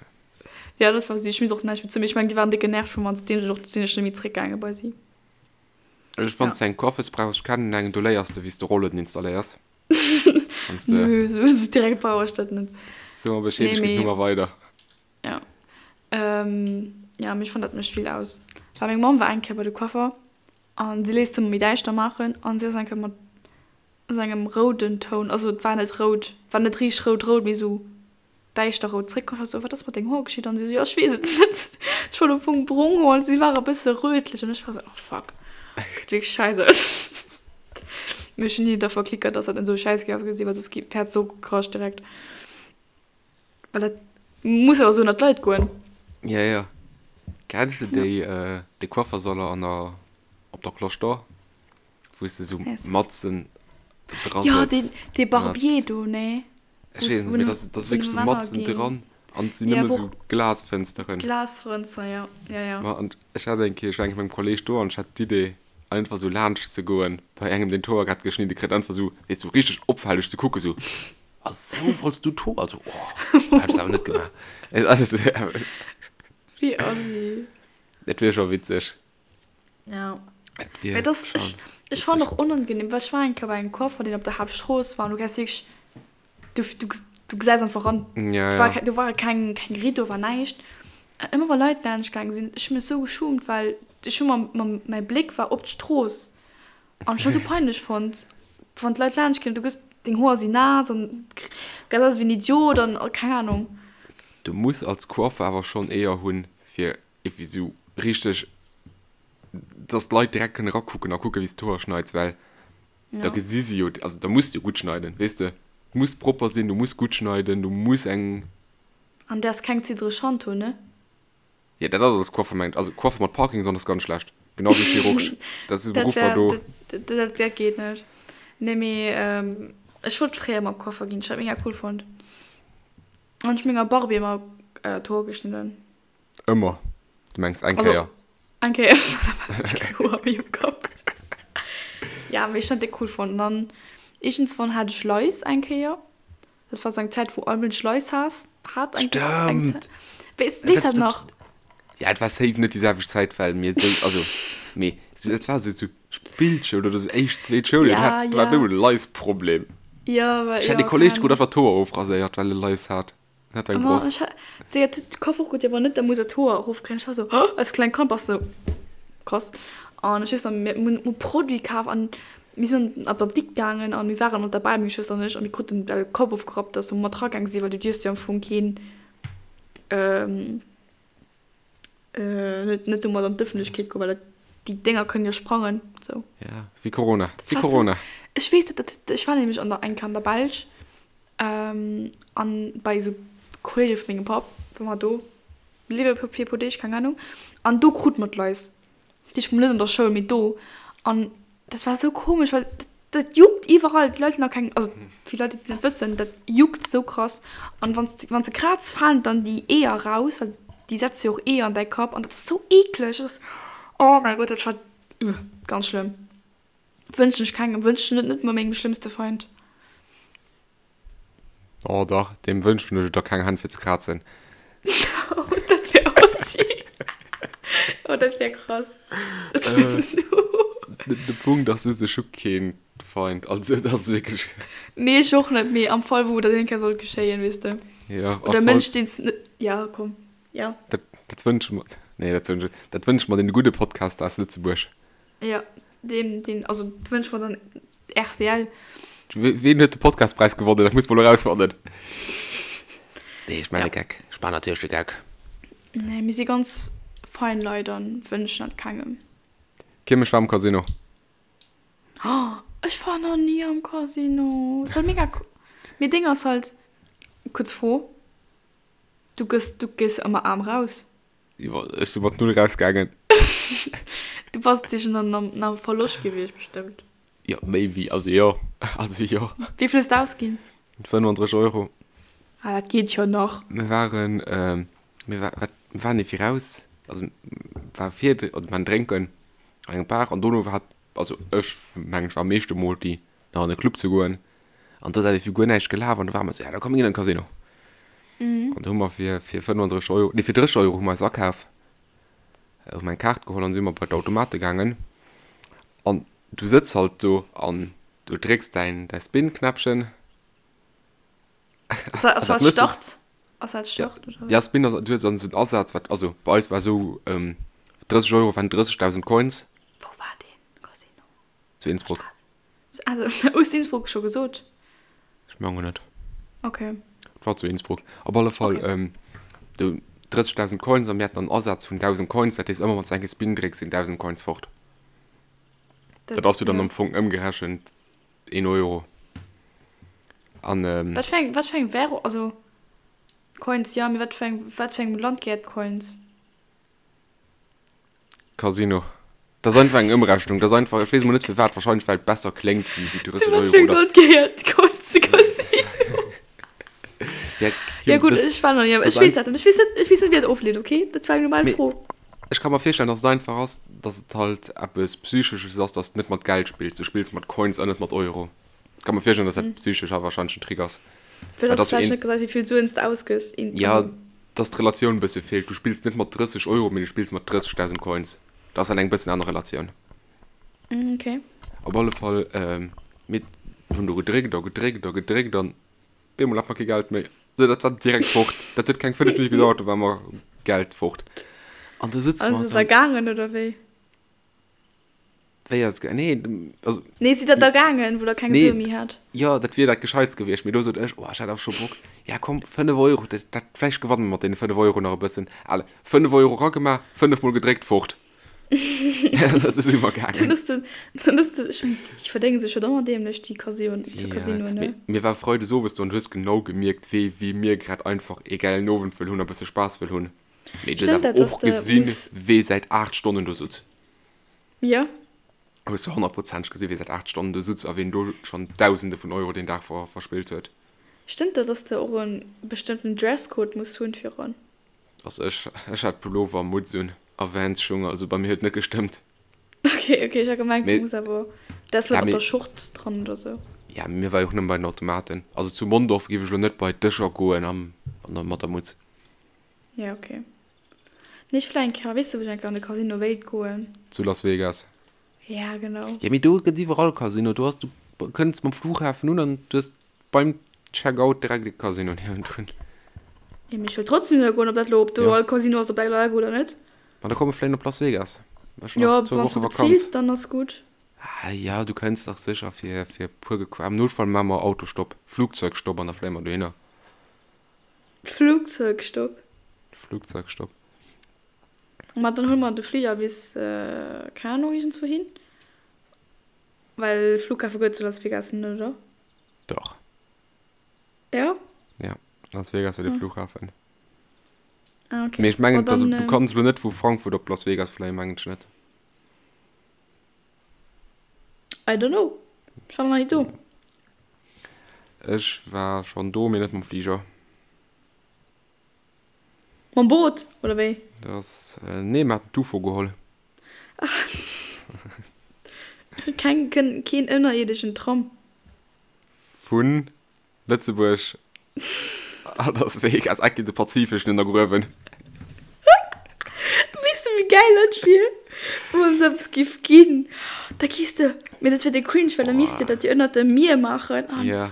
Ja, dat war süß. Ech misst och näischt méi zu mir. Ech mengen, déi waren déck genervt vu mer an seitdeem sinn ech net méi zréckgaange bei si. Ech wann s de eng Coiffeuse brauchs, ech kennen eng, do léiers de wéi s de Rollueden installéiers. Wanns de. Nö, sou direkt brauch ech dat net. So mer Bescheed, ech ginn d'Nummer weider. Ja. Ja, mee ech fannen dat mécht vill aus. Well meng Mamm war eng Kéier bei de Coiffer an si léisst ëmmer méi däischter maachen an si ass eng Kéier mat esou engem rouden Toun, also et war net rout, war net richteg rout rout, mee esou däischter rout zréckkomm. Ech war sou, wat ass mat deng Hoer geschitt? An si sou, jo ech weess et net. Ech wollt am Fong brong Hoer an si ware bësse rötlech an ech war sou, oh fuck, geet wierklech schäiss aus. Mee ech hunn ni da verklickert, dass dat net sou schäiss géif ausgesinn, well soss hätt se och gekrasch direkt. Well dat muss awer sou ënner d'Leit goen. Ja, ja. Kenns de déi, de Coiffersaler an der, op der Cloche d'Or, wou s de sou matzen dra sëtz? Jo, deen, dee Barbier do, nee? Ech weess net, mee dat ass wierklech sou matzen dran an et sinn nëmme sou Glasfënsteren. Glasfënster, jo, jo, jo. Ma an ech hat eng Kéier, ech war eng Kéier mat mengem Kolleeg do an ech hat d'Idee einfach sou laanscht ze goen bei engem deen d'Hoer grad geschnidde kritt, einfach sou, weess sou richteg opfälleg ze kucken, sou, a sou wollts du d'Hoer? Also, oh, dat hätt ech awer net gemaach. Wéi assi. Dat wier scho witzeg. Ja. Et wier das, schon ech, ech fand och unangenehm, well ech war eng Kéier bei engem Coiffer, deen op der Haaptstrooss war an du gesäis wierklech, du, du, du gesäis einfach ran. Ja, ja. War, do war keng, keng Rideau, war näischt. An ëmmer wa Leit laanscht gaange sinn, ech hu mech sou geschumt, well ech hu mam, mam, mäi Bléck war op d'Strooss an ech hu sou peinlech fonnt, wann d'Leit laanscht ginn, du gëss, deng Hoer sinn naass an gesäis aus wéi en Idiot an keng Ahnung. Du muss als Coiffer awer schonn Eeër hunn, fir Iergendwéi sou richteg, dass d'Leit direkt kënnen erakucken a kucken, wéi s d'Hoer schneits, well da gesi si jo, also da muss de jo gutt schneiden, weess de, du muss propper sinn, du muss gutt schneiden, du muss eng. An däers keng ziddereg Hand hunn, ne? Jo, dat ass als Coiffer mengt, also Coiffer mat Parkinson ass ganz schlecht, genau wéi Chirurg, dat si Beruffer do. Dat dat geet net. Nee, mee ech wollt fréier ëmmer Coiffer ginn, ech hat mega cool fonnt. An ech hu menger Barbie ëmmer d'Hoer geschnidden. Ëmmer? Du mengs eng Kéier? Eng Kéier, da war ech keng Hoer méi um Kapp. Ja, mee ech hunn dat déck cool fonnt. An dann iergendswann hat ech Lais eng Kéier. Dat war sou eng Zäit, wou all Mënsch Lais hat. Hat eng eng Stimmt. Weess weess dat nach? Ja, et war safe net déi selwecht Zäit, well mir sou, also, mee sou, dat war sou, sou Spillschoul oder sou éischt, zweet Schoul, Ja, dat war ja. do e Lice-Problem. Ja, well, Ech hat ja, e Kolleg, keine dee krut Ahnung. einfach d'Hoer ofraséiert, well e Lice hat. Hat eng Ma Bross. ech hat, Digga, de Koffer och gutt, jo, wann net, da muss er d'Hoer erofkréien. Ech war sou, als klengt Kand bass du sou, krass. An ech weess nach, mir hunn e Produit kaf an mir sinn an d'Apdikt gaangen an mir waren och derbäi, meng Schwëster an ech, a mir kruten de Kapp ofgerappt, dass mer mat ragaange sinn, well du dierfs jo am Fong keen, net, net domat an d'Ëffentlechkeet goen, well dat, déi Dénger kënnen jo sprangen, sou. Ja, wéi Corona, Dat wéi war sou, Corona. ech weess dat, dat, ech war nämlech an der, eng Kéier an der Belsch, An bei esou Kolleege vu mengem Papp war mer do bliwwe fir e puer Deeg, keng Ahnung. An do krute mer d'Lais. Dat heescht, net an der Schoul, mee do. An dat war esou komesch, well dat juckt iwwerall. D'Leit hunn nach keng, also fir Leit, déi et net wëssen, dat juckt esou krass. An wann s, wann s de kraaz, falen dann déi Eeër raus, well déi setze jo och Eeër an däi Kapp. An dat ass esou eekleg. Dat ass, oh mäi Gott, dat war ganz schlëmm. Wënschen ech kengem, wënschen et net mol mengem schlëmmste Feind. Oh dach, deem wënschen ech et da keng Hänn fir ze krazen. Oh, dat wär assi. Oh, dat wär krass. Dat wär De Punkt ass just, ech hu keen Feind, also et ass wierklech. Nee, ech och net, mee am Fall wou dat eng Kéier sollt geschéien, weess de. Ja, Oder e Mënsch, deen s net, ja, komm, ja. Dat, dat wënsche mer, nee, dat wënsche, dat wënsche mer deene gudde Podcaster aus Lëtzebuerg. Jo, deen, deen, also dat wënsche mer dann rtl. Ween huet de Podcastpräis gewonnen? Dat muss mer elo erausfannen. Nee, ech maachen Ja. e Geck. Ech maachen natierlech de Geck. Nee, mir si ganz fein Leit an wënschen dat kengem. Kim, ech war am Casino. Oh, ech war nach ni am Casino. Soll mega cool. Mee Ding ass halt, kuerz Fro, du gëss, du gees ëmmer aarm raus? Ech si mat null rausgaangen. Du bass dich an am Verloscht gewiescht bestëmmt. Jo, méi wéi, also jo, also jo. Wéi vill hues de ausginn? 35 Euro. Ah, dat geet jo nach. Mir waren, mir war, wat, mir waren iergendwéi raus, also war vir, oder mir waren drénken an engem Bar an dono war, also ech mengen ech war am meeschte Multi nach an e Club ze goen an do ass awer guer näischt gelaf an do ware mer esou, ja da komm mir ginn an de Casino. An do hu mer fir fir 35 Euro, nee fir 30 Euro hu mer eis akaf, hu mer eng Kaart geholl an si mer bei d'Automate gaangen an du sëtz halt do an du drécks däin däi Spin-Knäppchen. Ass dat Start? Ass dat Start oder? Ja, Spin ass, du hues dann esou en Asaz, wat, also bei eis war esou 30 Euro waren 30.000 Coins. Wou war deen Casino? Zu Innsbruck. Also, hues du Innsbruck scho gesot? Ech mengen net. Okay. Et war zu Innsbruck. Op alle Fall, okay. ähm, du 30.000 Coins an mir haten dann Asaz vun 1.000 Coins. Dat heescht, ëmmer wann s du eng Spin drécks, sinn 1.000 Coins fort. Dat, dat ass jo dann am Fong ëmgerechent 1 Euro. An, ähm, Wat fir eng, wat fir eng Währung, also Coins, ja, mee wat fir eng, wat fir engem Land gehéiert Coins? Casino. Dat ass einfach eng Ëmrechnung. Dat ass einfach, ech weess emol net firwat, wahrscheinlech well et besser kléngt wéi wéi 30 Zu wat Euro fir engem oder. Land gehéiert d'Coins de Casino? Ja, Ja Kim, gutt, dat, ech war nach ni am, dat ech ass weess einfach. dat net, ech weess net, ech weess net wéi dat ofleet, okay? Dat war eng normal Mee Fro. ech ka mer virstellen, dass et einfach ass, dass et halt eppes Psychesches ass, dass de net mat Geld spills, du spills mat Coins an net mat Euro. Ech ka mer virstellen, dass dat psychesch awer wahrscheinlech en Trick ass. Fir Well dass dass du du vläicht een. net gesäis, wéi vill Suen s de ausgëss, in, Ja, also. dass d'Relatioun e bësse feelt. Du spills net mat 30 Euro, mee du spills mat 30.000 Coins. Dat ass dann eng bëssen aner Relatioun. Mm, okay. Op alle Fall, mir hunn do gedréckt a gedréckt a gedréckt an bemol hat mer kee Geld méi. Dat war direkt fort. Dat huet keng 5 Minutte gedauert, do war mer Geld fort. An do sëtze mer Ass et da gaangen oder wéi? Wéi ass et Nee, also. Nee, sidd der da gaangen, wou der keng Nee, Sue méi hat? jo, dat wier dat Gescheitst gewiescht. Mee do sot ech, oh, ech hat awer scho Bock. Ja, komm, 5 Euro, dat, dat, vläicht gewanne mer mat deene 5 Euro nach e bëssen. Allez, 5 Euro ragemaach, 5 Mol gedréckt, fort. Dat ass iwwer Dann gaangen. ass den, dann ass den, ech mengen, déi verdénge sech jo da ëmmer dämlech, déi Casinoen, déi Ja, Casinoen, ne? mee mir war Freides owes do an du hues genau gemierkt, wéi, wéi mir grad einfach ee gäilen Owend wëll hunn a bësse Spaass wëll hunn. Mee du hues Stëmmt awer dat, dass och de gesinn, muss. wee säit 8 Stonnen do sutz. Jo. Hues du honnertprozenteg gesinn, wee säit 8 Stonnen do sutz a ween do schonn Dausende vun Euro deen Dag ver verspillt huet. Stëmmt dat, dass de och e bestëmmten Dresscode muss hunn fir eran? Also ech, ech hat Pullover a Mutz un a Vans-Schung, also bei mir huet net gestëmmt. Ok, ok, ech hat gemengt, du Mee, muss awer, däers ja, mat mee, der Schort dran oder sou. ja, mir war jo och nëmme bei den Automaten. Also zu Mondorf géif ech elo net bei d'Dëscher goen am. Mat der Mutz. Ja, okay. Nee, ech wëll eng Kéier, weess de wou ech eng Kéier an de Casino wéilt goen? Zu Las Vegas. Ja, genau. Ja, mee do gëtt iwwerall Casino. Do ass, du kënns mam Flughafen un an du hues beim Checkout direkt e Casino niewendrun. Ja, mee ech wëll trotzdem dohinner goen, ob dat elo, ob do all Casino ass op der Level oder net. Ma da komme vläicht op Las Vegas. Ech hunn nach zwou Woche Vakanz. Ja, wann s du beziils, dann ass gutt. Ah ja, du kënns dach sécher fir, fir e puer Gequ-, am Noutfall maache mer Autostopp, Flugzeugstopp an da fléie mer dohinner. Flugzeugstopp. Flugzeugstopp. Ma dann huele mer de Fliger bis, keng Ahnung, iergendzwou hin. Well Flughafe gëtt et zu Las Vegas net, oder? Dach. Ja? Ja, Las Vegas huet e Flughafen. Ah, okay. Mee ech mengen, also du kanns elo net vu Frankfurt op Las Vegas fléien, mengen ech net. I don't know. Ech war nach ni do. Ech war schonn do, mee net mam Fliger. Mam Boot, oder wéi? Dat ass, nee, mir haten d'UFO geholl. Keng, keen ënnerierdeschen Tram? Vu Lëtzebuerg a Las Vegas, enke de Pazifeschen ënnergruewen. Weess de wéi gäil dat wier, wann esou eppes giff ginn? Da giss de, mee dat wier de cringe, well da misst de dat jo ënnert dem Mier maachen an, Ja.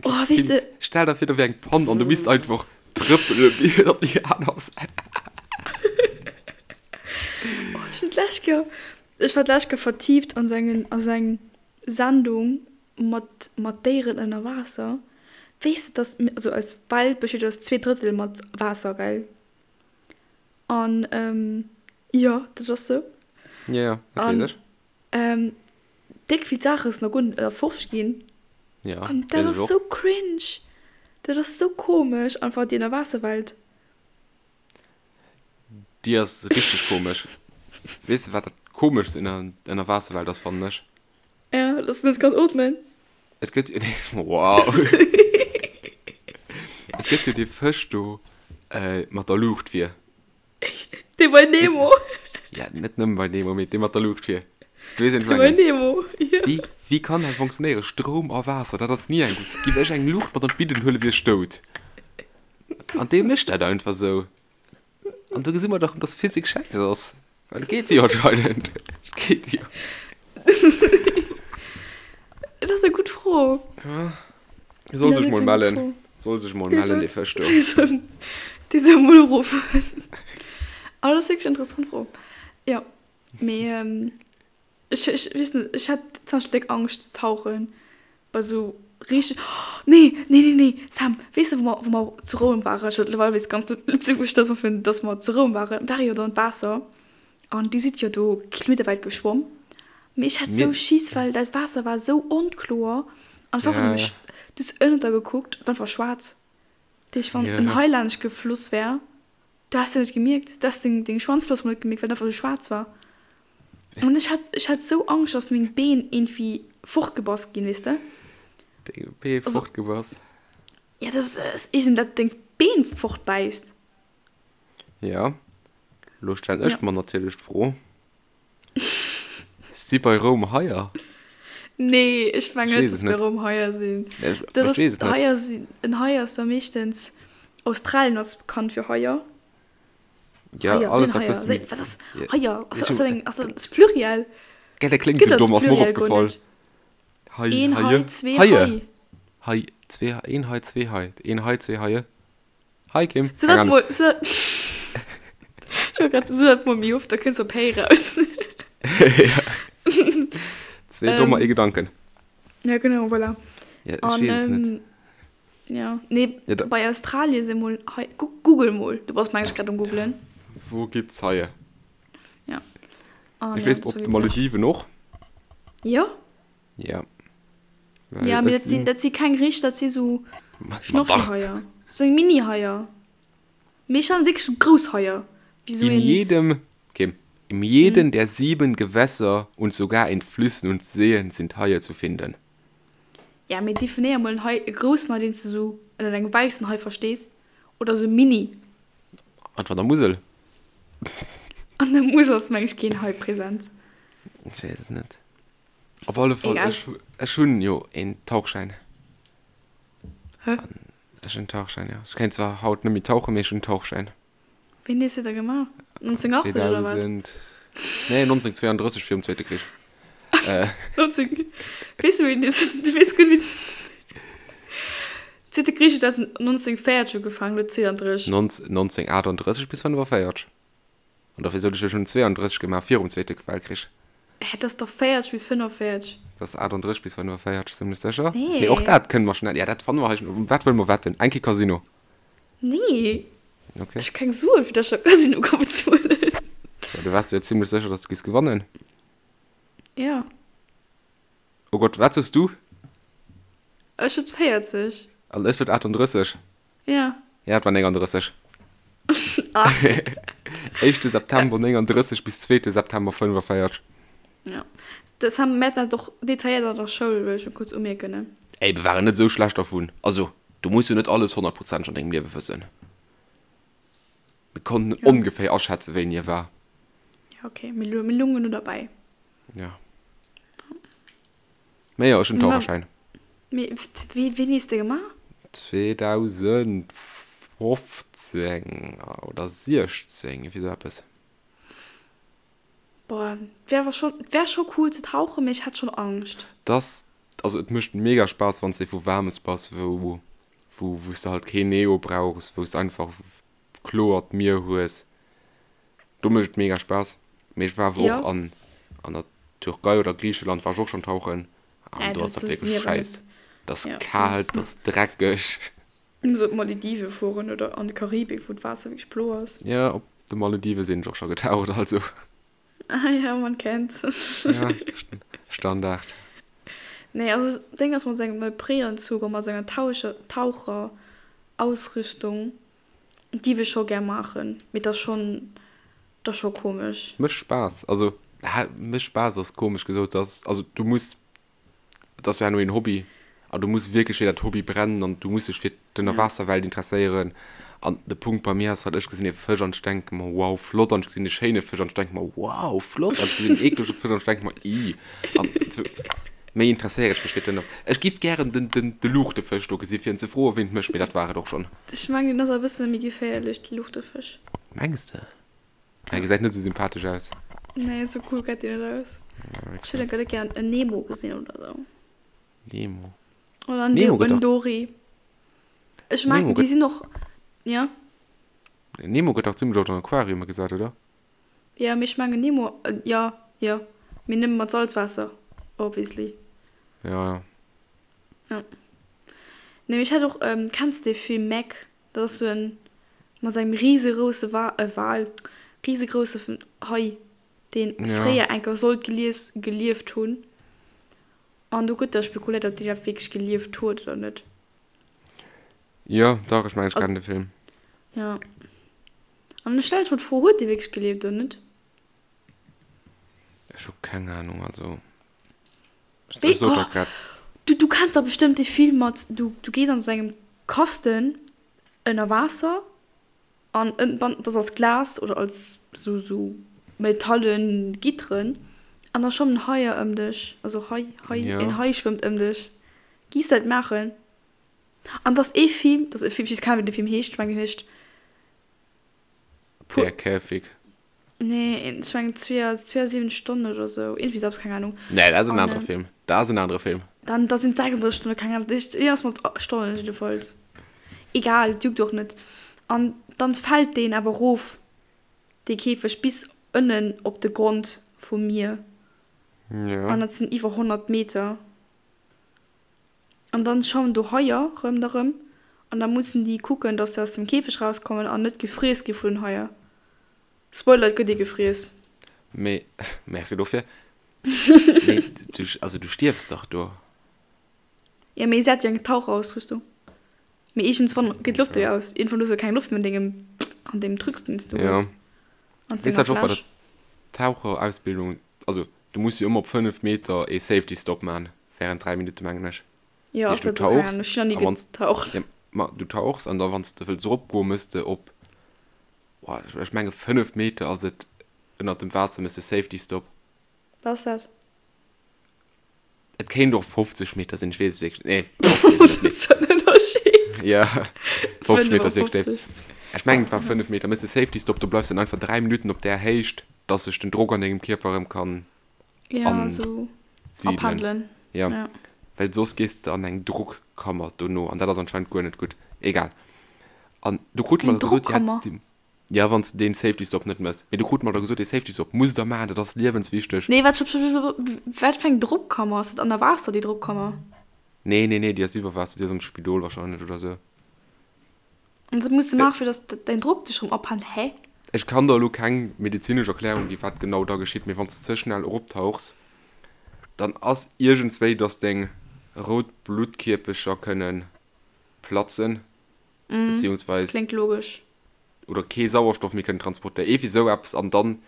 oh weess de. Stell der vir, do wier eng Pann an du misst einfach trëppele bis op déi aner Säit. Oh, ech hunn d'lescht Kéier, ech war d'lescht Kéier vertieft an esou engen, a sou eng Sendung mat mat Déieren ënner Waasser. Weess de dass, also eis Welt besteet aus 2 Drëttel mat Waasser, gell? An jo, dat ass sou. Jo, jo, dat weess ech. An déck vill Saache sinn nach guer net erforscht ginn. Jo, An dat weess ass ech och. sou cringe. Dat ass sou komesch, einfach déi Ënnerwaasserwelt. Déi ass richteg komesch. Weess de wat dat komeschst un der Ënnerwaasserwelt ass, fannen ech? Ja, dass du net kanns ootmen. Et gëtt jo dee, wow. Et gëtt jo dee Fësch do mat der Luucht vir. Dee bei Nemo. Ja, net nëmmen bei Nemo, mee dee mat der Luucht vir. Du weess, ween ech Dee bei mengen. Nemo, jo. Wéi, wéi kann dat funktionéieren? Stroum a Waasser, dat ass ni eng gutt. Giff ech eng Luucht mat an d'Bidden huelen, wier ech dout. An dee mécht dat einfach sou. An do gesi mer dach, dass Physik schäiss ass. Well et geet jo anscheinend. Et geet jo. Dat ass eng gutt Fro. Ja. Soll sech mol mellen. Soll sech mol mellen, dee Fësch do. Dee soll mol uruffen. Aber dat ass wierklech eng interessant Fro. Jo. Mee. Ech, ech weess net, ech hätt zum Beispill déck Angscht ze tauchen bei sou richteg, oh nee, nee, nee, nee, Sam, weess de wou mer, wou mer zu Roum waren, ech mëttlerweil weess ganz Lëtzebuerg, dass mer vun, dass mer zu Roum waren, ware jo do an d'Waasser an déi sidd jo do kilometerwäit geschwomm, mee ech hat sou Schiss, well dat Waasser war sou onkloer an ech war einfach nëmme, du hues ënnert der gekuckt, et war einfach schwaarz, dat heescht wann en Hai laanscht gefloss wär, Du has se net gemierkt, du has deng, deng Schwanzfloss mol net gemierkt, well et einfach sou schwaarz war. An ech hat, ech hat sou Angscht, dass meng Been iergendwéi fortgebass ginn, weess de? Deng Been Also, fortgebass? ja, dass, dass iergend dat deng Been fortbäisst. Ja, lo stellen Ja. ech mer natierlech d'Fro, Si bei Roum Haier? Nee, ech mengen Ech net, weess dass et bei net. Roum Haier sinn. Ech, Dat ech ass, weess et net. Haier sinn, en Hai ass jo meeschtens, Australien ass bekannt fir Haier. Ja, Haier, alles sinn wat Haier, bësse sinn, méi wat ass ja, Haier? Ass, ech ass dat eng, ass dat dat Pluriel? Gell, dat kléngt Gëtt sou als domm, ass mer och Pluriel guer opgefall. net. Hai, Een Haie, Hai, zwee Haie, Hai. Hai, zwee, een Hai, zwee Hai, een Hai, zwee Haie. Hi Kim, So keng dat Ahnung. mol, so dat, ech wollt grad so dat mol méi oft, da kënns op héi raus. Ja. Zwee Dommer, ee Ähm, Gedanken. ja genau, voilà. Ja, ech An weess et net. ähm, ja, nee, Ja, da, bei Australien si mol Hai, gu google mol, du bass meng ech grad um googlen. Wo gibt's Haie? Ja. An Ech ja, weess dat op war de witzeg. Malediven och. Jo? Ja. Well Ja, mee ech dat sinn, sinn. dat si keng richteg, dat si sou Ma dach! Schnorchelhaier, sou eng Mini-Haier. Mee ech fannen wierklech sou grouss Haier, wéi sou In een. jedem, Kim, in jeden der sieben Gewässer und sogar in Flüssen und Seen sind Haie zu finden. Ja, mee definéier mol en Hai, e groussen Hai, deen s de sou ënnert engem wäissen Hai verstees, oder sou Mini. Einfach an der Musel. An der Musel ass meng ech keen Hai present. Ech weess et net. Op alle Fall, Egal. ech, ech hunn jo een Tauchschäin. Hä? Ech hunn en Tauchschäin, jo. Ech kéint zwar haut net méi tauchen, mee ech hunn en Tauchschäin. Wéini hues de da gemaach? 1980 oder wat? 2000, nee, 1932 virum Zweete Krich. 19, weess du wéini du weess gutt wéini Zweete Krich huet 1940 ugefaangen, elo 32. 1938 bis 45. An dofir sot ech, ech hunn 32 gemaach virum Zweete Weltkrich. Hä, dat ass dach 40 bis 45. Dat ass 38 bis 45, zimlech sécher. Nee. Mee och dat kënne mer schnell, ja dat fanne mer hei schnell. Um wat wëlle mer wetten? Eng Kéier Casino. Nee. Okay. Ech hu keng Suen, fir dass ech am Casino ka bezuelen. Ja, du waars der jo zimlech sécher, dass du giss gewannen. Ja. Oh Gott, wat soos du? Ech sot 40. An ech sot 38. Ja. Ja, et war 39. Ah. Éischte September 39 bis zweete September 45. Ja. Das haben mir dann doch detailliert an der Schoul, wëll ech schon kurz umierken, ne? Ey, mir waren net esou schlecht dervun. Also, du muss jo net alles honnertprozenteg an dengem Liewe wëssen. Mir konnten ja. ongeféier aschätzen, wéini e war. Ja, okay. Mir, mir lungen nur dabei. Ja. Mee jo, ech hunn Taucherschäin. Mee wéini hues de gemaach? 2015 oder 16, iergendwéi sou eppes. Boah, wär awer schon, wär scho cool ze tauchen, mee ech hätt schon Angscht. Dass, also et mécht mega Spaass wanns de vu Waarmes bass, wou, wou, wous de halt keen Neo brauchs, wous de einfach kloert Mier hues. Do mécht et mega Spaass. Mee ech war awer och an an der Türkei oder Griicheland war ech och schonn tauchen an do ass dat wierklech schäiss. Et ass kal, et ass dreckeg. Du muss op d'Maledive fueren oder an d'Karibik, wou d'Waasser wierklech blo ass. Jo, op de Maledive sinn ech och scho getaucht, also. Ah ja, man kennt's. Ja, Standard. Nee, also Ding ass mat sengem Neoprenanzug a mat senger Taucherausrüstung Giff ech scho gär maachen, mee et ass schon, et ass scho komesch. Mécht Spaass, also mécht Spaass ass komesch gesot, dass, also du muss, et ass jo herno een Hobby an du muss wierklech fir dat Hobby brennen an du muss dech fir d'Ënnerwaasserwelt interesséieren an de Punkt bei mir ass halt, ech gesinn ee Fësch an ech denke mer wow flott an ech gesinn e schéine Fësch an ech denke mer wow flott an ech gesinn en eeklege Fësch an ech denke mer ih an sou. Méi interesséiere ech mech fir den. Ech giff gären den den de Luuchtefësch do gesi fir en ze froe wéi en mécht, mee dat war et och schonn. Ech mengen den ass e bëssen méi geféierlech, de Luuchtefësch. Mengs de? Hie gesäit net esou sympathesch aus. Nee, esou cool gesäit deen net aus. Ech hätt gär gären en Nemo gesinn oder sou. Nemo. Oder en Nemo gëtt en Dory. Ech mengen déi sinn och, jo. Nemo gëtt dach zimmlech oft an Aquariume gesat, oder? Jo, mee ech mengen Nemo, jo, jo, mee nëmme mat Salzwaasser, obviously. Jo, jo. Jo. Nee, mee ech hat och, kenns de dee Film Meg? Dat ass sou en, mat engem risegrouse Wa, äh, Wal, risegrousse Hai, deen fréier enker sollt gelies, gelieft hunn. An do gëtt da spekuléiert, ob deen iwwerhaapt wierklech gelieft huet oder net. Jo, dach, ech mengen, ech kennen de Film. Jo. An ech stellen ech mer d'Fro, huet dee wierklech gelieft oder net? Ech hu keng Ahnung, also ech Wéi, sot der grad. Du, du kenns dach bestëmmt dee Film mat, du, du gees an esou engem Kasten ënner Waasser an ënnen, dat ass als Glas oder als sou, sou metallen Gitteren an da schwammen Haier ëm dech, also Hai, Hai, een Hai schwëmmt ëm dech. Giss dat maachen? An dass ee Film, dass e Film, ech weess keng wéi de Film heescht, ech mengen hien heescht Der Käfig. Nee, ech mengen 72 Stonnen oder sou, iergendwéi sou eppes, keng Ahnung. Nee, dat ass en anere Film. Dat ass en anere Film. Dann, da sinn et 36 Stonnen, keng Ahnung, iergendwas mat Stonnen jiddefalls. Egal, et juckt och net. An dann fält deen awer erof, dee Käfeg, bis ënnen op de Grond vum Mier. Jo. An dat sinn iwwer 100 Meter. An dann schwammen do Haier ronderëm an da mussen déi kucken, dass se aus dem Käfeg rauskommen an net gefriess gi vun den Haier. Spoiler, et gëtt ee gefriess. Mee, merci dofir. Mee du, also du stierfs dach do. Jo, mee se hat jo eng Taucherausrüstung. Mee iergendswann geet d'Loft jo aus. Iergendwann hues du keng Loft méi an dengem, an deem Trucs, deen s du hues. An denger Fläsch. Weess dat och bei der Taucherausbildung, also du muss jo ëmmer op 5 Meter ee Safety Stop man. Während 3 Minutten, mengen ech. Jo, ass dat okay? Ech hunn nach ni getaucht. Ja, ma du tauchs an da wann s de wëlls eropgoen, mëss de op, boah, ech menge 5 Meter ass et ënnert dem Waasser, mëss de Safety Stop. Wat ass dat? Et kéint och 50 Meter sinn, ech weess et wierklech net. Nee, 50 ass et net. Dat ass en Ënnerscheed. Ja, 50 Meter ass wierklech déif. Ech mengen, et war 5 Meter. Méchs de Safety Stop, do bleifs dann einfach 3 Minutten op där Héicht, dass sech den Drock an dengem Kierper erëm kann Ja, esou asidelen. Ja, well soss gees de an eng Drockkammer dono an dat ass anscheinend guer net gutt. Egal. An do krute mer da gesot, ja, ja, wann s de deen Safety Stop net méchs. Mee do krute mer da gesot, dee Safety Stop musst der maachen, dat ass liewenswichteg. Nee, wat, stopp, stopp, stopp, wat fir eng Drockkammer? Ass dat ënner Waasser, déi Drockkammer? Nee, nee, nee, déi ass iwwer Waasser, déi ass am Spidol wahrscheinlech oder sou. An dat muss de maachen, fir dass däin Drock sech erëm ophält, hä? Ech kann der elo keng medezinesch Erklärung ginn, wat genau da geschitt, mee wann s de ze schnell eroptauchs, dann ass iergendswéi, dass deng rout Bluttkierpecher kënne platzen, beziehungsweis. Kléngt logesch. Oder kee Sauerstoff méi kënnen transportéieren, iergendwéi sou eppes, an dann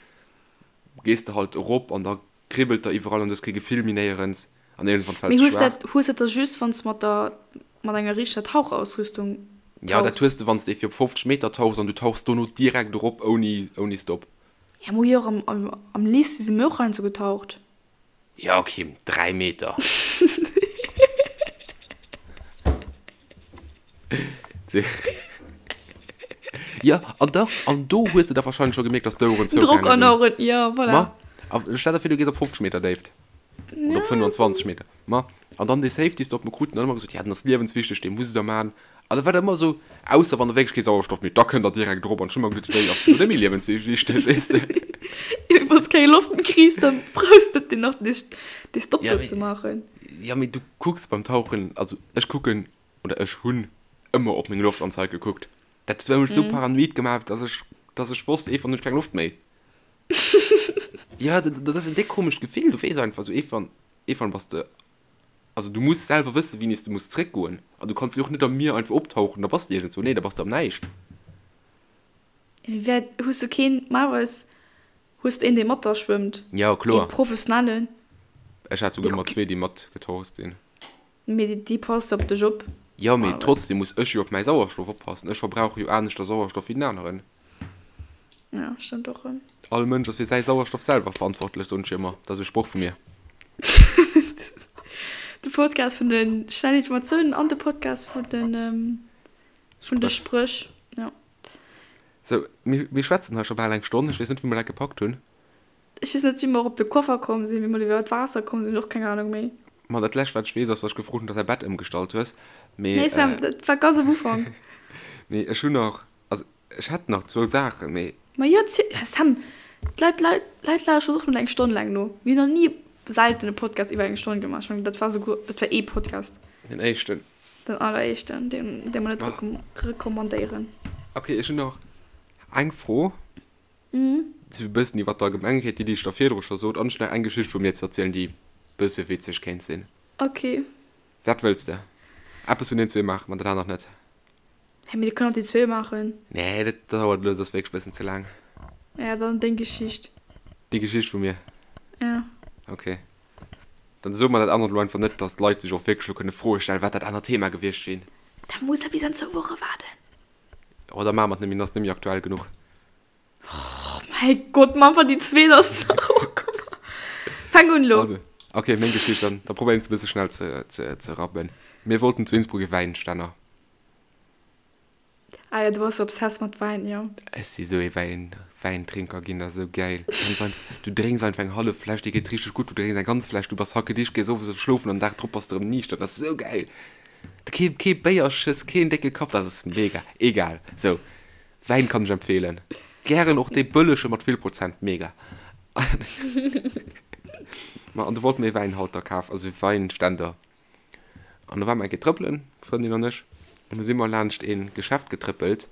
gees de halt erop an da kribbelt der iwwerall an du hues kee Gefill méi néierens an iergendwann fäls de schwaach. Mee hues dat da just wann s de mat der mat enger richteger Tauchausrüstung tauchs? Jo, dat hues de wann s de fir op 50 Meter tauchs an du tauchs dono direkt erop ouni ouni Stop. Ja, mo jo och am am Lycée si mir och heiansdo getaucht. Jo, ok, 3 Meter. Jo, an da, an do hues de da wahrscheinlech scho gemierkt, dass d'Oueren zougaange sinn. Drock an Oueren, jo, voilà. Ma, a stell der vir, du gees op 50 Meter Déift. Oder op 25 Meter. Ma, an dann dee Safety Stop, mir kruten dann ëmmer gesot, ja, den ass liewenswichteg, dee musst der maachen. An da war dat ëmmer esou, ausser wann der wierklech kee Sauerstoff méi hutt, da kënnt der direkt erop. An ech hu mer geduet, wéi, ass dat net méi liewenswichteg, weess de? Wann s keng Loft méi kriss, dann brauchs de net deen nach, dee Stop do ze maachen. Jo, mee du kucks beim Tauchen, also ech kucken, oder ech hunn ëmmer op meng Loftanzeig gekuckt. Dat huet mech esou paranoid gemaach, dass ech, dass ech wosst, eef wann hunn ech keng Loft méi. Jo, dat, dat ass en déck komescht Gefill. Du weess einfach esou, eef wann, eef wann bass de, also du muss selwer wëssen, wéini s de muss zréckgoen. An du kanns jo och net am Mier einfach optauchen, da bass de iergendzwou. Nee, da bass de am Näischt. Mee wär, hues du keen, normalerweis hues de een, dee mat der schwëmmt? Jo, kloer. Ee professionellen. Ech hat souguer ëmmer zwee, déi matgetaucht sinn. Mee déi passt op dech op. Jo, mee trotzdem muss ech jo op mäi Sauerstoff oppassen. Ech verbrauche jo aneschter Sauerstoff wéi den aneren. Ja, stëmmt och erëm. All Mënsch ass fir säi Sauerstoff selwer verantwortlech, soen ech jo ëmmer. Dat ass e Sproch vu mir. De Podcast vun de schnellen Informatiounen an de Podcast vun de, vun de Spréch. Ja. Sou, mir, mir schwätzen hei scho bal eng Stonn. Ech weess net, wéi mer dat gepackt hunn. Ech weess net, wéi mer op de Koffer komm sinn, wéi mer iwwer d'Waasser komm sinn, och keng Ahnung méi. Ma dat lescht wat ech weess ass, dass ech gefrot hunn, dass säi Bett ëmgestallt hues. Mee, Nee Sam, dat war ganz am Ufank. Mee ech hunn nach, also ech hätt nach zwou Saachen, mee. Ma jo, Sam, d'Leit, d'Leit, d'Leit lauschteren och net eng Stonn laang no. Mir hunn nach ni, selten e Podcast iwwer eng Stonn gemaach. Ech mengen, dat war souguer, dat war ee Podcast. Den éischten. Den alleréischten, deen, dee mer net recommandéieren. Ok, ech hunn nach eng Fro. Sou e bëssen iwwer d'Allgemengheet, déi, déi ech der virdru scho sot, an ech nach eng Geschicht vu mir ze erzielen, déi bësse witzeg kéint sinn. Ok. Wat wëlls de? Eppes vun den zwee maache mer, dat anert net. Hä, mee dir kënnt och déi zwee maachen. Nee, dat dauert elo, dat ass wierklech bëssen ze laang. Ja, dann deng Geschicht. Déi Geschicht vu mir? Ja. Ok. Dann soe mer dat anert elo einfach net, dass d'Leit sech och wierklech elo kënne Froe stellen, wat dat anert Thema gewiescht wier. Da muss der bis an zwou Woche waarden. Oh, da maache mer et net méi, dann ass et net méi aktuell genuch. Oh mäi Gott, ma einfach déi zweet ass nach och komm. Fänk un elo. Also, ok, meng Geschicht dann. Da probéieren ech se e bësse schnell ze, ze, ze rappen. Mir wollten zu Innsbruck e Wäinstänner. Ah ja, du bass sou obsessed mat Wäin, jo. Ech si sou ee Wäin, Wäintrinker ginn, dat ass sou gäil. Du kanns einfach, du drénks einfach eng hallef Fläsch, dir geet richteg gutt, du drénks eng ganz Fläsch, du bass hackedicht, gees owes schlofen an den Dag drop bass de erëm niichter, dat ass sou gäil. Kee, kee Béierschëss, keen décke Kapp, dat ass mega. Egal, sou. Wäin kann ech empfehlen. Gären och dee bëllege mat vill Prozent, mega. Ma an du wollt mir ee Wäinhalter kafen, also ee Weinständer. An do ware mer eng Kéier trëppelen, d'Frëndin an ech, an du si mer laanscht ee Geschäft getrëppelt,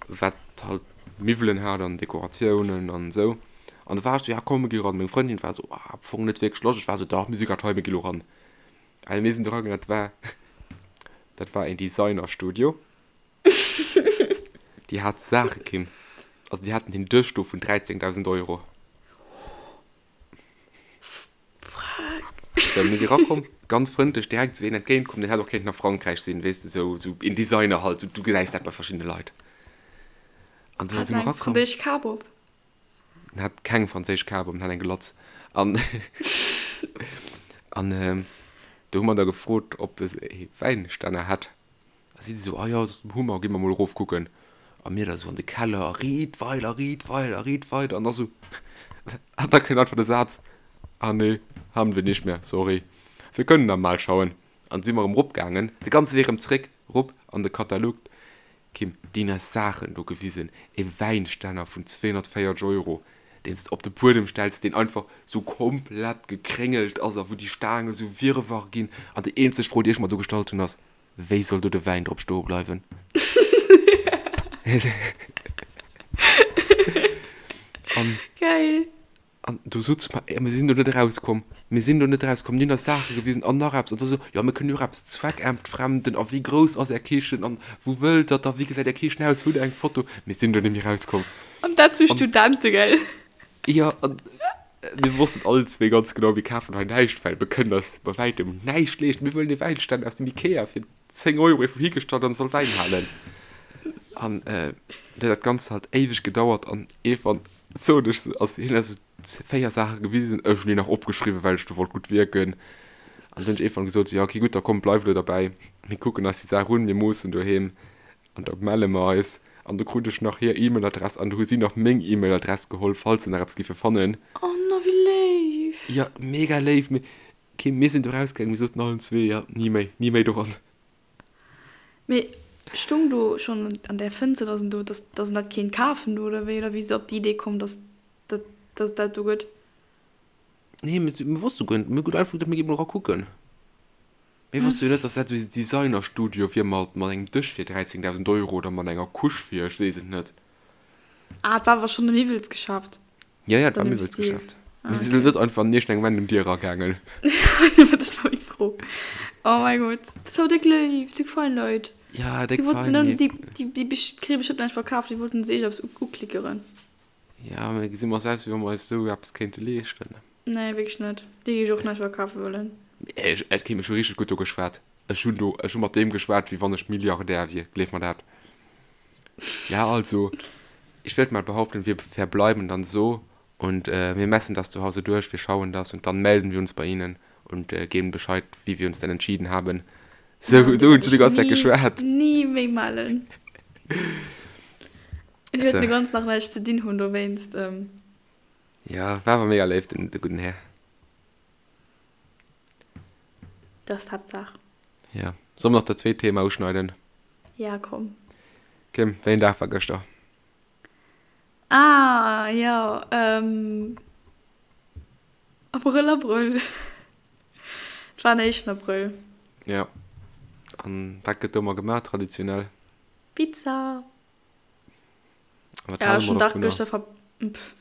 wat halt Miwwelen hat an Dekoratiounen an esou. An du war ech sou, ja komm mir gi ran. Meng Frëndin war sou, ah am Fong net wierklech Loscht. Ech war sou, dach mir si grad hei, mir gi lo ran. Well mir sinn do ragaangen, dat war, dat war een Designerstudio. Déi hat Saache, Kim. Also déi haten den Dësch do vun 13.000 Euro. So, mir si rakomm, ganz frëndlech, direkt esou een entgéintkomm, deen hätt och kéinten a Frankräich sinn, weess de, sou, sou een Designer halt, sou, du gesäis dat bei verschiddene Leit. An du si mer rakomm. Hat en eng franséisch Kap op? En hat keng franséisch Kap op, en hat eng Glatz. An, an do hu mer da gefrot, ob e Wäinstänner hätt. A si esou, ah jo, dat hu mer, gi mer mol erof kucken. A mir da sou an de Keller a riit weider, riit weider, riit weider. An da sou, an da kënnt einfach de Saz, Ah nee, haben wir nicht mehr, sorry. Wir können da mal schauen. An si mer erëm eropgaangen, de ganze Wee erëm zréck erop an de Katalog. Kim, déi hunn eis Saachen do gewisen, e Wäinstänner vun 240 Euro, deen s de op de Buedem stells, deen einfach sou komplett gekréngelt ass a wou déi Staange sou wirrwarr ginn. An déi eenzeg Fro, déi ech mer do gestallt hunn, ass, Wéi soll do de Wäin drop stoe bleiwen? An. Geil. An do sutz mer, mir sinn do net erauskomm, mir sinn do net erauskomm, déi hunn eis Saache gewisen an nach eppes an da sou, jo mir kënnen jo och eppes zweckentfremden a wéi grouss ass är Kichen an wou wëllt der da, wéi gesäit är Kichen aus, hutt der eng Foto? Mir sinn do net méi erauskomm. An dat zu Studente, gell? Jo, an mir wossten allen zwee ganz genau, mir kafen hei näischt, well mir kënnen eis bei wäitem näischt leeschten, mir wëllen ee Wäinständer aus dem Ikea fir 10 Euro iergendwou higestallt an soll Wäin halen. An huet dat Ganzt halt éiweg gedauert an iergendwann sot ech, also hien huet eis esou 4 Saache gewisen, ech hunn déi nach opgeschriwwen, well ech do wollt gutt wierken. An dann hunn ech iergendwann gesot, jo okay gutt, da komm bleif elo derbäi, mir kucken eis déi Saach un, mir moossen doheem an da melle mer eis. An du krut ech nach hir E-Mail-Adress an du hu si nach meng E-Mail-Adress geholl, falls se nach eppes giffe fannen. Oh no, wéi léif! Jo, mega léif, mee Kim, mir sinn do rausgaangen, mir soten allen zwee, jo, ni méi, ni méi doran. Mee stung do schonn an där Fënster, dass en do, dass, dass en dat kéint kafen do, oder wéi? Oder wéi si op déi Idee komm, dass dat, dass et dat do gëtt? Nee, mir, mir wosste guer net, mir hunn einfach geduecht, mir gi mol era kucken. Mir wosste jo net, dass dat esou e Designerstudio wier mat, mat engem Dësch fir 13.000 Euro oder mat enger Couche fir, ech weess et net. Ah, et war awer schonn e Miwwelsgeschäft. Ja, ja, et war Miwwelsgeschäft. Ah, okay. Mir sinn net einfach an iergendeng random Dier eragaangen. Dat war meng Fro. Oh mäi Gott. Dat war déck léif, déck fein Leit. Ja, déck fein. Déi, déi, déi kréie bestimmt näischt verkaaft, déi wollten sech eppes uklickeren. Ja, mä gesi mer eis aus, wéi wa mer eis esou eppes kéinte leeschten? Nee, wierklech net. Déi géif ech och näischt verkafe wëllen. Ech, ech kéint mech scho richteg gutt do geschwat. Ech hunn do, ech hu mat deem geschwat, wéi wann ech Milliardär wier, gleef mer dat. Ja, also, ich würde mal behaupten, wir verbleiben dann so und wir messen das zu Hause durch, wir schauen das und dann melden wir uns bei Ihnen und geben Bescheid, wie wir uns denn entschieden haben. Sou, sou hunn ech déi ganz Zäit geschwat. Ni méi mellen. Ech wäert den ganzen Dag näischt ze dinn hunn dowéinst. Ja, war awer mega léif, den de gudden Här. Dat ass d'Haaptsaach. Ja. Solle mer nach dat zweet Thema uschneiden? Ja, komm. Kim, wéi en Dag war gëschter? Ah, jo, ähm, Abrëll, Abrëll. Et war den éischten Abrëll. Ja. An wat gëtt do ëmmer gemaach traditionell? Pizza. A wat hale mer dovunner? Gëschter ver... Pff,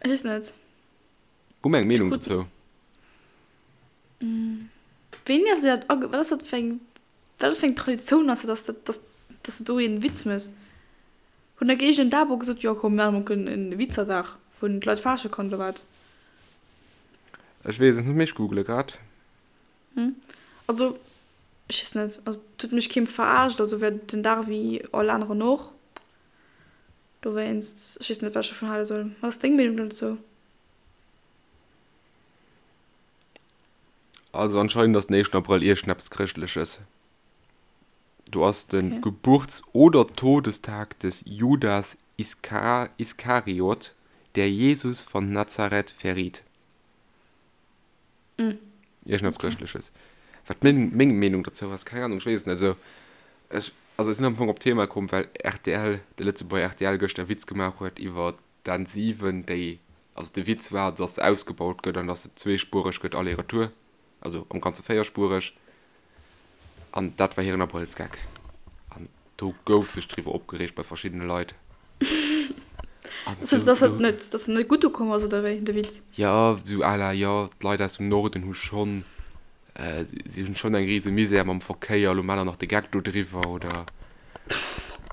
ech weess net. Hu mer eng Meenung dozou? Wéini ass dat age... Wat ass dat fir eng... Wat ass fir eng Traditioun ass dat, dass, dass, dass de do een Witz mëss? Hunn der Géigend Dabo gesot, jo komm mir maachen mol en Witzerdag, wou d'Leit faasche kann oder wat? Ech weess et net, mee ech googele grad. Also ech weess net, also et huet mech keem verarscht, also wär den Dag wéi all aneren och. Dowéinst, ech weess net wat ech dovun hale soll. Wat ass deng Meenung dann dozou? Also anscheinend ass den éischten Abrëll iergendeppes Chrëschtleches. Do ass de okay. Geburts oder Todestag des Judas Iska Iskariot, der Jesus von Nazareth verriet. Mm. Iergendeppes okay. Chrëschtleches. Wat meng, meng Meenung dozou ass, keng Ahnung, ech weess et net. Also, ech, also ech sinn am Fong op d'Thema komm, well rtl, de Lëtzebuerger rtl gëschter e Witz gemaach huet iwwer d'N 7, déi, also de Witz war, dass se ausgebaut gëtt an dass se zweespuereg gëtt aller-retour, also am Ganze véierspuereg. An dat war hiren Abrëllsgag. An do gouf sech driwwer opgereegt bei verschiddene Leit. An Dass dass dat net, dass dat net gutt ukomm ass, oder wéi, de Witz? Jo, sou à la, jo, d'Leit aus dem Norden hu schonn Si hunn schonn eng rise Misär mam Verkéier, elo maacht der nach de Geck do driwwer, oder?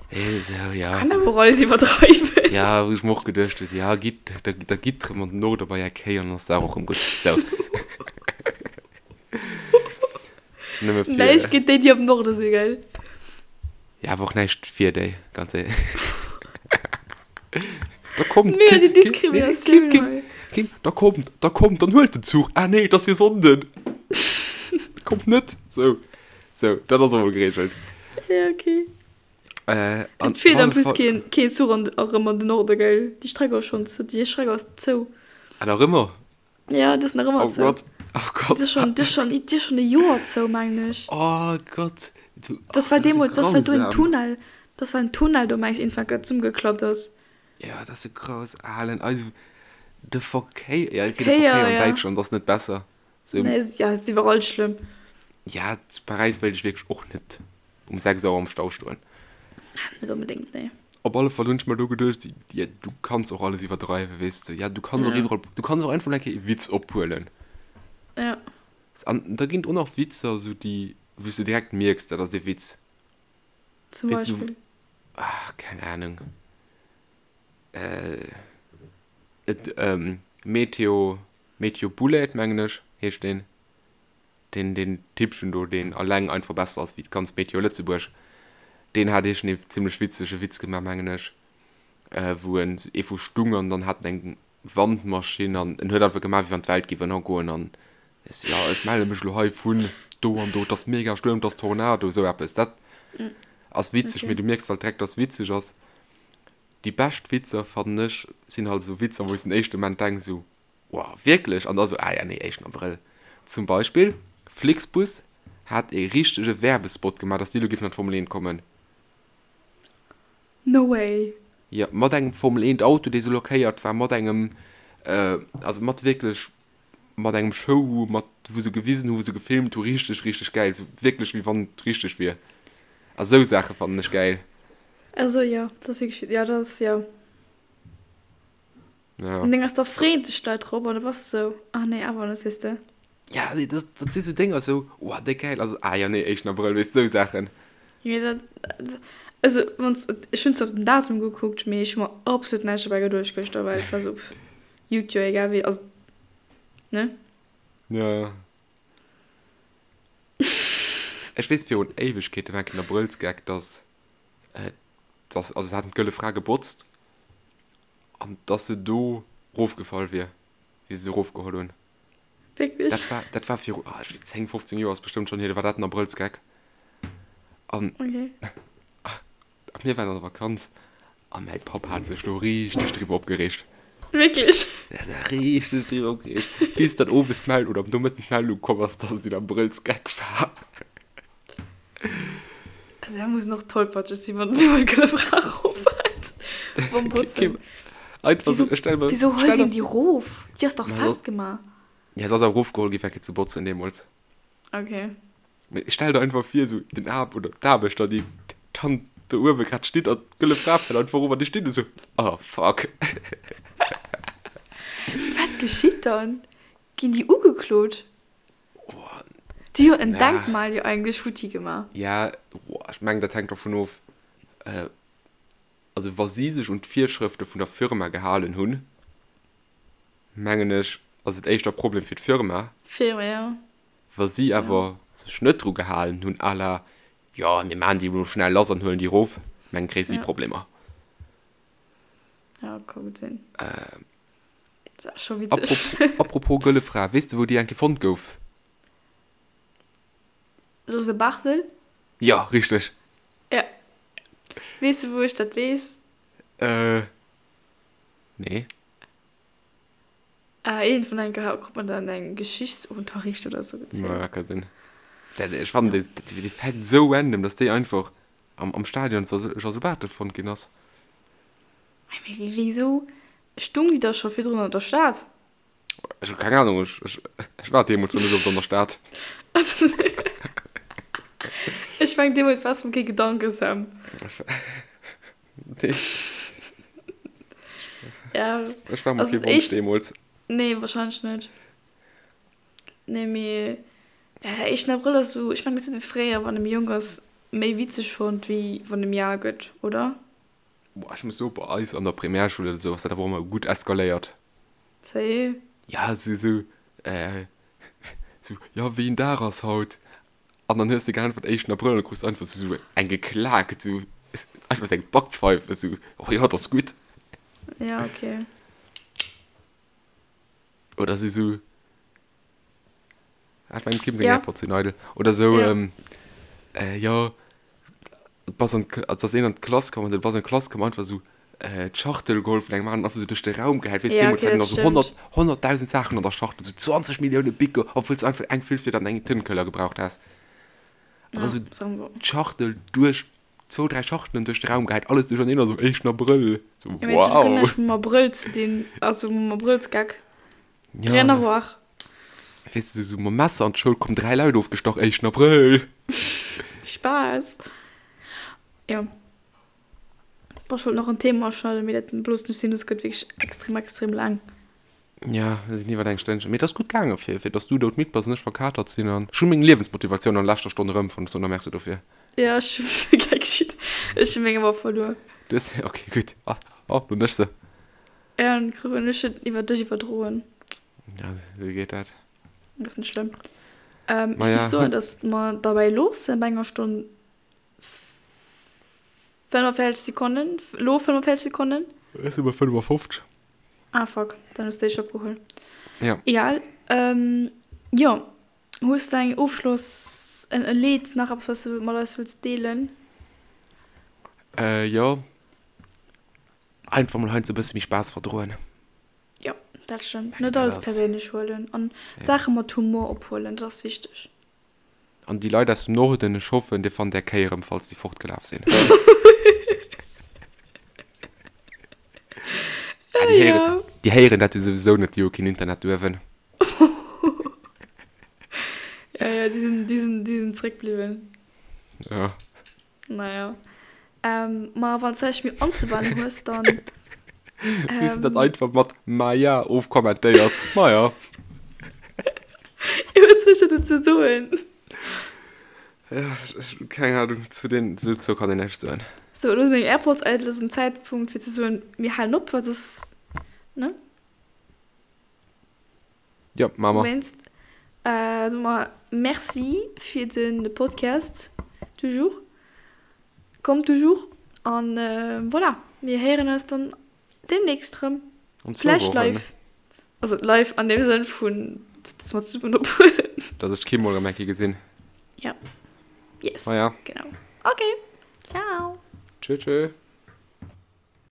Esou, ja. Kann awer och alles iwwerdreiwen. Ja, wou ech mer och geduecht hu, ja, gitt, da, da gitt rëm an den Norde bei är Kéi an dann ass d'Saach och rëm gutt. Sou. Nëmme fir. Näischt géint déi, déi am Norde sinn, gell? Ja, awer och näischt fir déi, ganz éierlech. Da kommt, Mega déi Diskriminatioun Kim, Kim, Kim, da kommt, da kommt, dann huelt den Zuch. Ah nee, et ass jo Sonnden. Kommt net. Sou, sou, dat ass och mol geregelt. Ja, okay. Äh, an Et fiert en plus keen, keen Zuch an, erëm an den Norde, gell? Déi Streck ass schonn zou, déi Streck ass zou. Ah, nach ëmmer? Ja, déi ass nach ëmmer oh zou. Gott, oh Gott. Déi ass schonn, déi ass schonn, déi ass schonn e Joer zou, mengen ech. Oh Gott. Du, das war deemools, das war do en Tunnel, das war en Tunnel do, mengen ech, iergendwann grad zesummegeklappt ass. Ja, dat ass sou graus alen, also de Verkéier, ja, okay, de Verkéier an Däitschland ass net besser. So, nee, ja, et ass iwwerall schlëmm. Ja, zu Paräis wéilt ech wierklech och net um 6 Auer am Stau stoen. Net onbedéngt, nee. Op alle Fall hunn ech mer do geduecht, ja, du kanns och alles iwwerdreiwen, weess de. Ja, du kanns och iwwerall, du kanns och einfach mol eng Kéier e Witz ophuelen. Ja. An da ginn et och nach Witzer, sou déi, wou s du direkt mierks, dat ass e Witz. Zum Beispill? Ach, keng Ahnung. Äh, et, Meteo, Meteo Bullet, mengen ech, heescht deen. Deen, deen Typchen do, deen alleng einfach besser ass wéi d'ganz Meteo Lëtzebuerg, deen hat iergendee zimmlech witzege Witz gemaach, mengen ech, wou en ee vu stung an dann hat en eng Wandmaschinn an en huet einfach gemaach, wéi wann d'Welt géif ënnergoen an ech sou, jo, ech melle mech elo hei vun do an do, et ass mega Stuerm, et ass Tornado, esou eppes. Dat ass witzeg, mee du mierks halt direkt, dass et witzeg ass. Déi bescht Witzer, fannen ech, sinn halt esou Witzer, wou s den éischte Moment denks esou, Wow, wierklech? An da sou, ah ja, nee, éischten Abrëll. Zum Beispill, Flixbus hat ee richtege Werbespot gemaach, dass déi elo géifen an d'Formel 1 kommen. No way! Jo, mat engem Formel 1 Auto, dee sou lackéiert war, mat engem, also mat wierklech, mat engem Show, mat, wou se gewisen hu, wou se gefilmt hu, richteg, richteg gäil, sou wierklech wéi wann et richteg wier. A sou Saache fannen ech gäil. Also jo, dat ass wierklech, jo, dat ass, jo. Ja. An deng ass da freeën sech d'Leit drop an du bass esou, ah nee, awer net, weess de. Ja, nee, dat, dat si sou Dénger, sou, oh, déck gäil, also, ah ja, nee, éischten Abrëll, weess de, sou Saachen. Mee dat, also, wann, ech hunn zwar op den Datum gekuckt, mee ech hu mer absolut näischt dobäi geduecht gëschter, well ech war sou, pff, juckt jo egal wéi, also, ne? Ja, ja. Ech weess, virun Éiwegkeete war eng Kéier en Abrëllsgeck, dass, dass, also, se haten d'Gëlle Fra gebotzt An dass se do rofgefall wier, wéi se se rofgeholl hunn. Wierklech? Dat war, dat war viru, ah, ech weess, 10, 15 Joer ass bestëmmt schonn hier, do war dat en Abrëllsgeck. An Okay. a mir waren an der Vakanz a mäi Papp hat sech do richteg driwwer opgereegt. Wierklech? Der hat sech richteg driwwer opgereegt, bis dann owes d'Meldung oder am Nomëtten d'Meldung komm ass, dass et een Abrëllsgeck war. Also da muss och tollpatscheg sinn, wann niemand gëlle Fra roffält beim Botzen. Einfach Wieso, so, stell mir, wieso stell holt dir, een déi rof? Déi ass dach Ma so, festgemaach. ja, se ass awer erofgeholl gi fir eng Kéier ze botzen deemools. Okay. Mee stell der einfach vir, sou den Aarb oder d'Aarbechter, déi dann do uewe grad steet an d'gëlle Fra fält einfach erof an déi stinn do sou, oh fuck. Wat geschitt dann? Ginn déi ugeklot? Déi hu jo en Denkmal jo eigentlech futti gemaach. Ja, ech mengen dat hänkt dovun of, also wa si sech un d'Virschrëfte vun der Firma gehalen hunn, mengen ech, ass et éischter e Problem fir d'Firma. Firma, ja. Wa si awer sech net dru gehalen hunn, à la, jo mir maachen déi elo schnell lass an huelen déi erof, mengen kréie si Problemer. Ja, ka gutt sinn. Dat ass scho witzeg. Apropos Gëlle Fra, weess de wou déi eng Kéier fonnt gouf? José Barthel? Jo, richteg. Ja. Weess de wou ech dat weess? Äh, nee. Ah, iergendwann eng Kéier krut mer dat an engem Geschichtsunterricht oder sou gezielt. Ja, ka sinn. Dat, ech fannen dee, dee Fact sou random, dass déi einfach am, am Stadion José Barthel fonnt ginn ass. Mee wéisou Stung déi da scho virdrun an der Stad? Ech hu keng Ahnung, ech, ech, ech war deemools nach net oft an der Stad. Ech meng deemools waars mer kee Gedanke, Sam. Nee. Ja, Ech war mer also kee Wonsch éischt, deemools. nee, wahrscheinlech net. Nee, mee ja, der éischten Abrëll ass sou, ech meng dat huet ee fréier, wann ee méi jonk ass, méi witzeg fonnt, wéi wann ee méi al gëtt, oder? Boah, ech muss soen, bei eis an der Primärschoul oder sou ass dat awer och ëmmer gutt eskaléiert. Sérieux? Ja, sou, sou, äh, sou, jo, wéi een Dag ass haut? An dann hues de geäntwert, éischten Abrëll, an da krus de einfach sou eng geklaakt, sou, einfach sou eng Backpfeif, sou, oh jo, dat ass gutt. Ja, okay. Oder sou, sou, Ah, ech mengen, Kim seng Ja. Airpods sinn eidel. Oder sou, Ja. ähm, äh, jo. Bass an d'K-, also ass een an d'Klass komm an du bass an d'Klass komm, einfach esou d'Schachtel geholl vun engem aneren, einfach esou duerch de Raum gehäit, weess, Ja, deemools okay, haten dat nach esou stëmmt. 100, 100.000 Saachen an der Schachtel, esou 20 Millioune Bicker, obwuel s du einfach eng Füllfieder an eng Tëntekeller gebraucht häss. An da Ja, esou sagen wir. d'Schachtel duerch, zwou, dräi Schachtelen duerch de Raum gehäit, alles duercherneen, also éischten Abrëll, esou Ja, mee dat huet guer wow. näischt mam Abrëll ze dinn, also mam Abrëllsgag. Ja. Rien à voir. Weess de, esou mam Messer an d'Schoul komm, dräi Leit ofgestach, éischten Abrëll. Spaass. Jo. Boah, ech wollt nach en Thema uschneiden, mee dat loossen ech sinn, dës gëtt wierklech extrem, extrem laang. Ja, mir sinn iwwer eng Stënnchen. Mee et ass gutt gaangen, fir, fir dass du doudmidd bass an ech verkatert sinn. An ech hu meng Liewensmotivatioun an leschter Stonn erëmfonnt. Ech soen der Merci dofir. Ja, ech hu keng Schitt. Ech hu meng awer verluer. Du hues, okay, gutt. Ah, oh, lo hunn ech se. Ja, dann krut ech et iwwer dech iwwerdroen. Ja, esou geet dat. Dat ass net schlëmm. Ähm, ech géif soen, dass mer derbäi loossen bei enger Stonn 45 Sekonnen. Lo 45 Sekonnen. Ech si bei 55. Ah, fuck, dann hues de éischt opgeholl. Ja. Egal. Ähm, jo, hues de eng Ofschloss, en e Leed, nach eppes, wat s de mat eis wëlls deelen? Äh, jo. Einfach mol heiansdo e bësse méi Spaass verdroen. Jo, dat stëmmt. Net alles perséinlech huelen an d'Saache mat Humor ophuelen, dat ass wichteg. An déi Leit aus dem Norden, ech hoffen, dir fannt är Kéi erëm, falls déi fortgelaf sinn. Ah, déi héieren, déi héieren dat jo souwisou net, déi hu keen Internet duerwen. Ja, ja, déi sinn, déi sinn, déi sinn zréckbliwwen. Ja. Naja. Ähm, ma wann s de näischt méi anzewennen hues, dann. Wéi s de dat einfach mat Maja ofkommentéiers. Maja. Jo, wat soll ech da dozou soen? Ja, ech, keng Ahnung, zu den, dozou kann een näischt soen. Sou, elo sinn meng Airpods eidel, et ass en Zäitpunkt fir ze soen, mir halen op, wat ass, ne? Jo, maache mer. Dowéinst soe mer Merci fir de Podcast, toujours, comme toujours. An voilà, mir héieren eis dann deemnächst rëm. An zwou Vläicht Wochen. live. Also live an deem Sënn vun, dass mer zesummen ophuelen. Dass ech d'Kim mol erëm eng Kéier gesinn. Ja. Yes. Maja. Genau. Okay. Ciao. Tschö, tschö.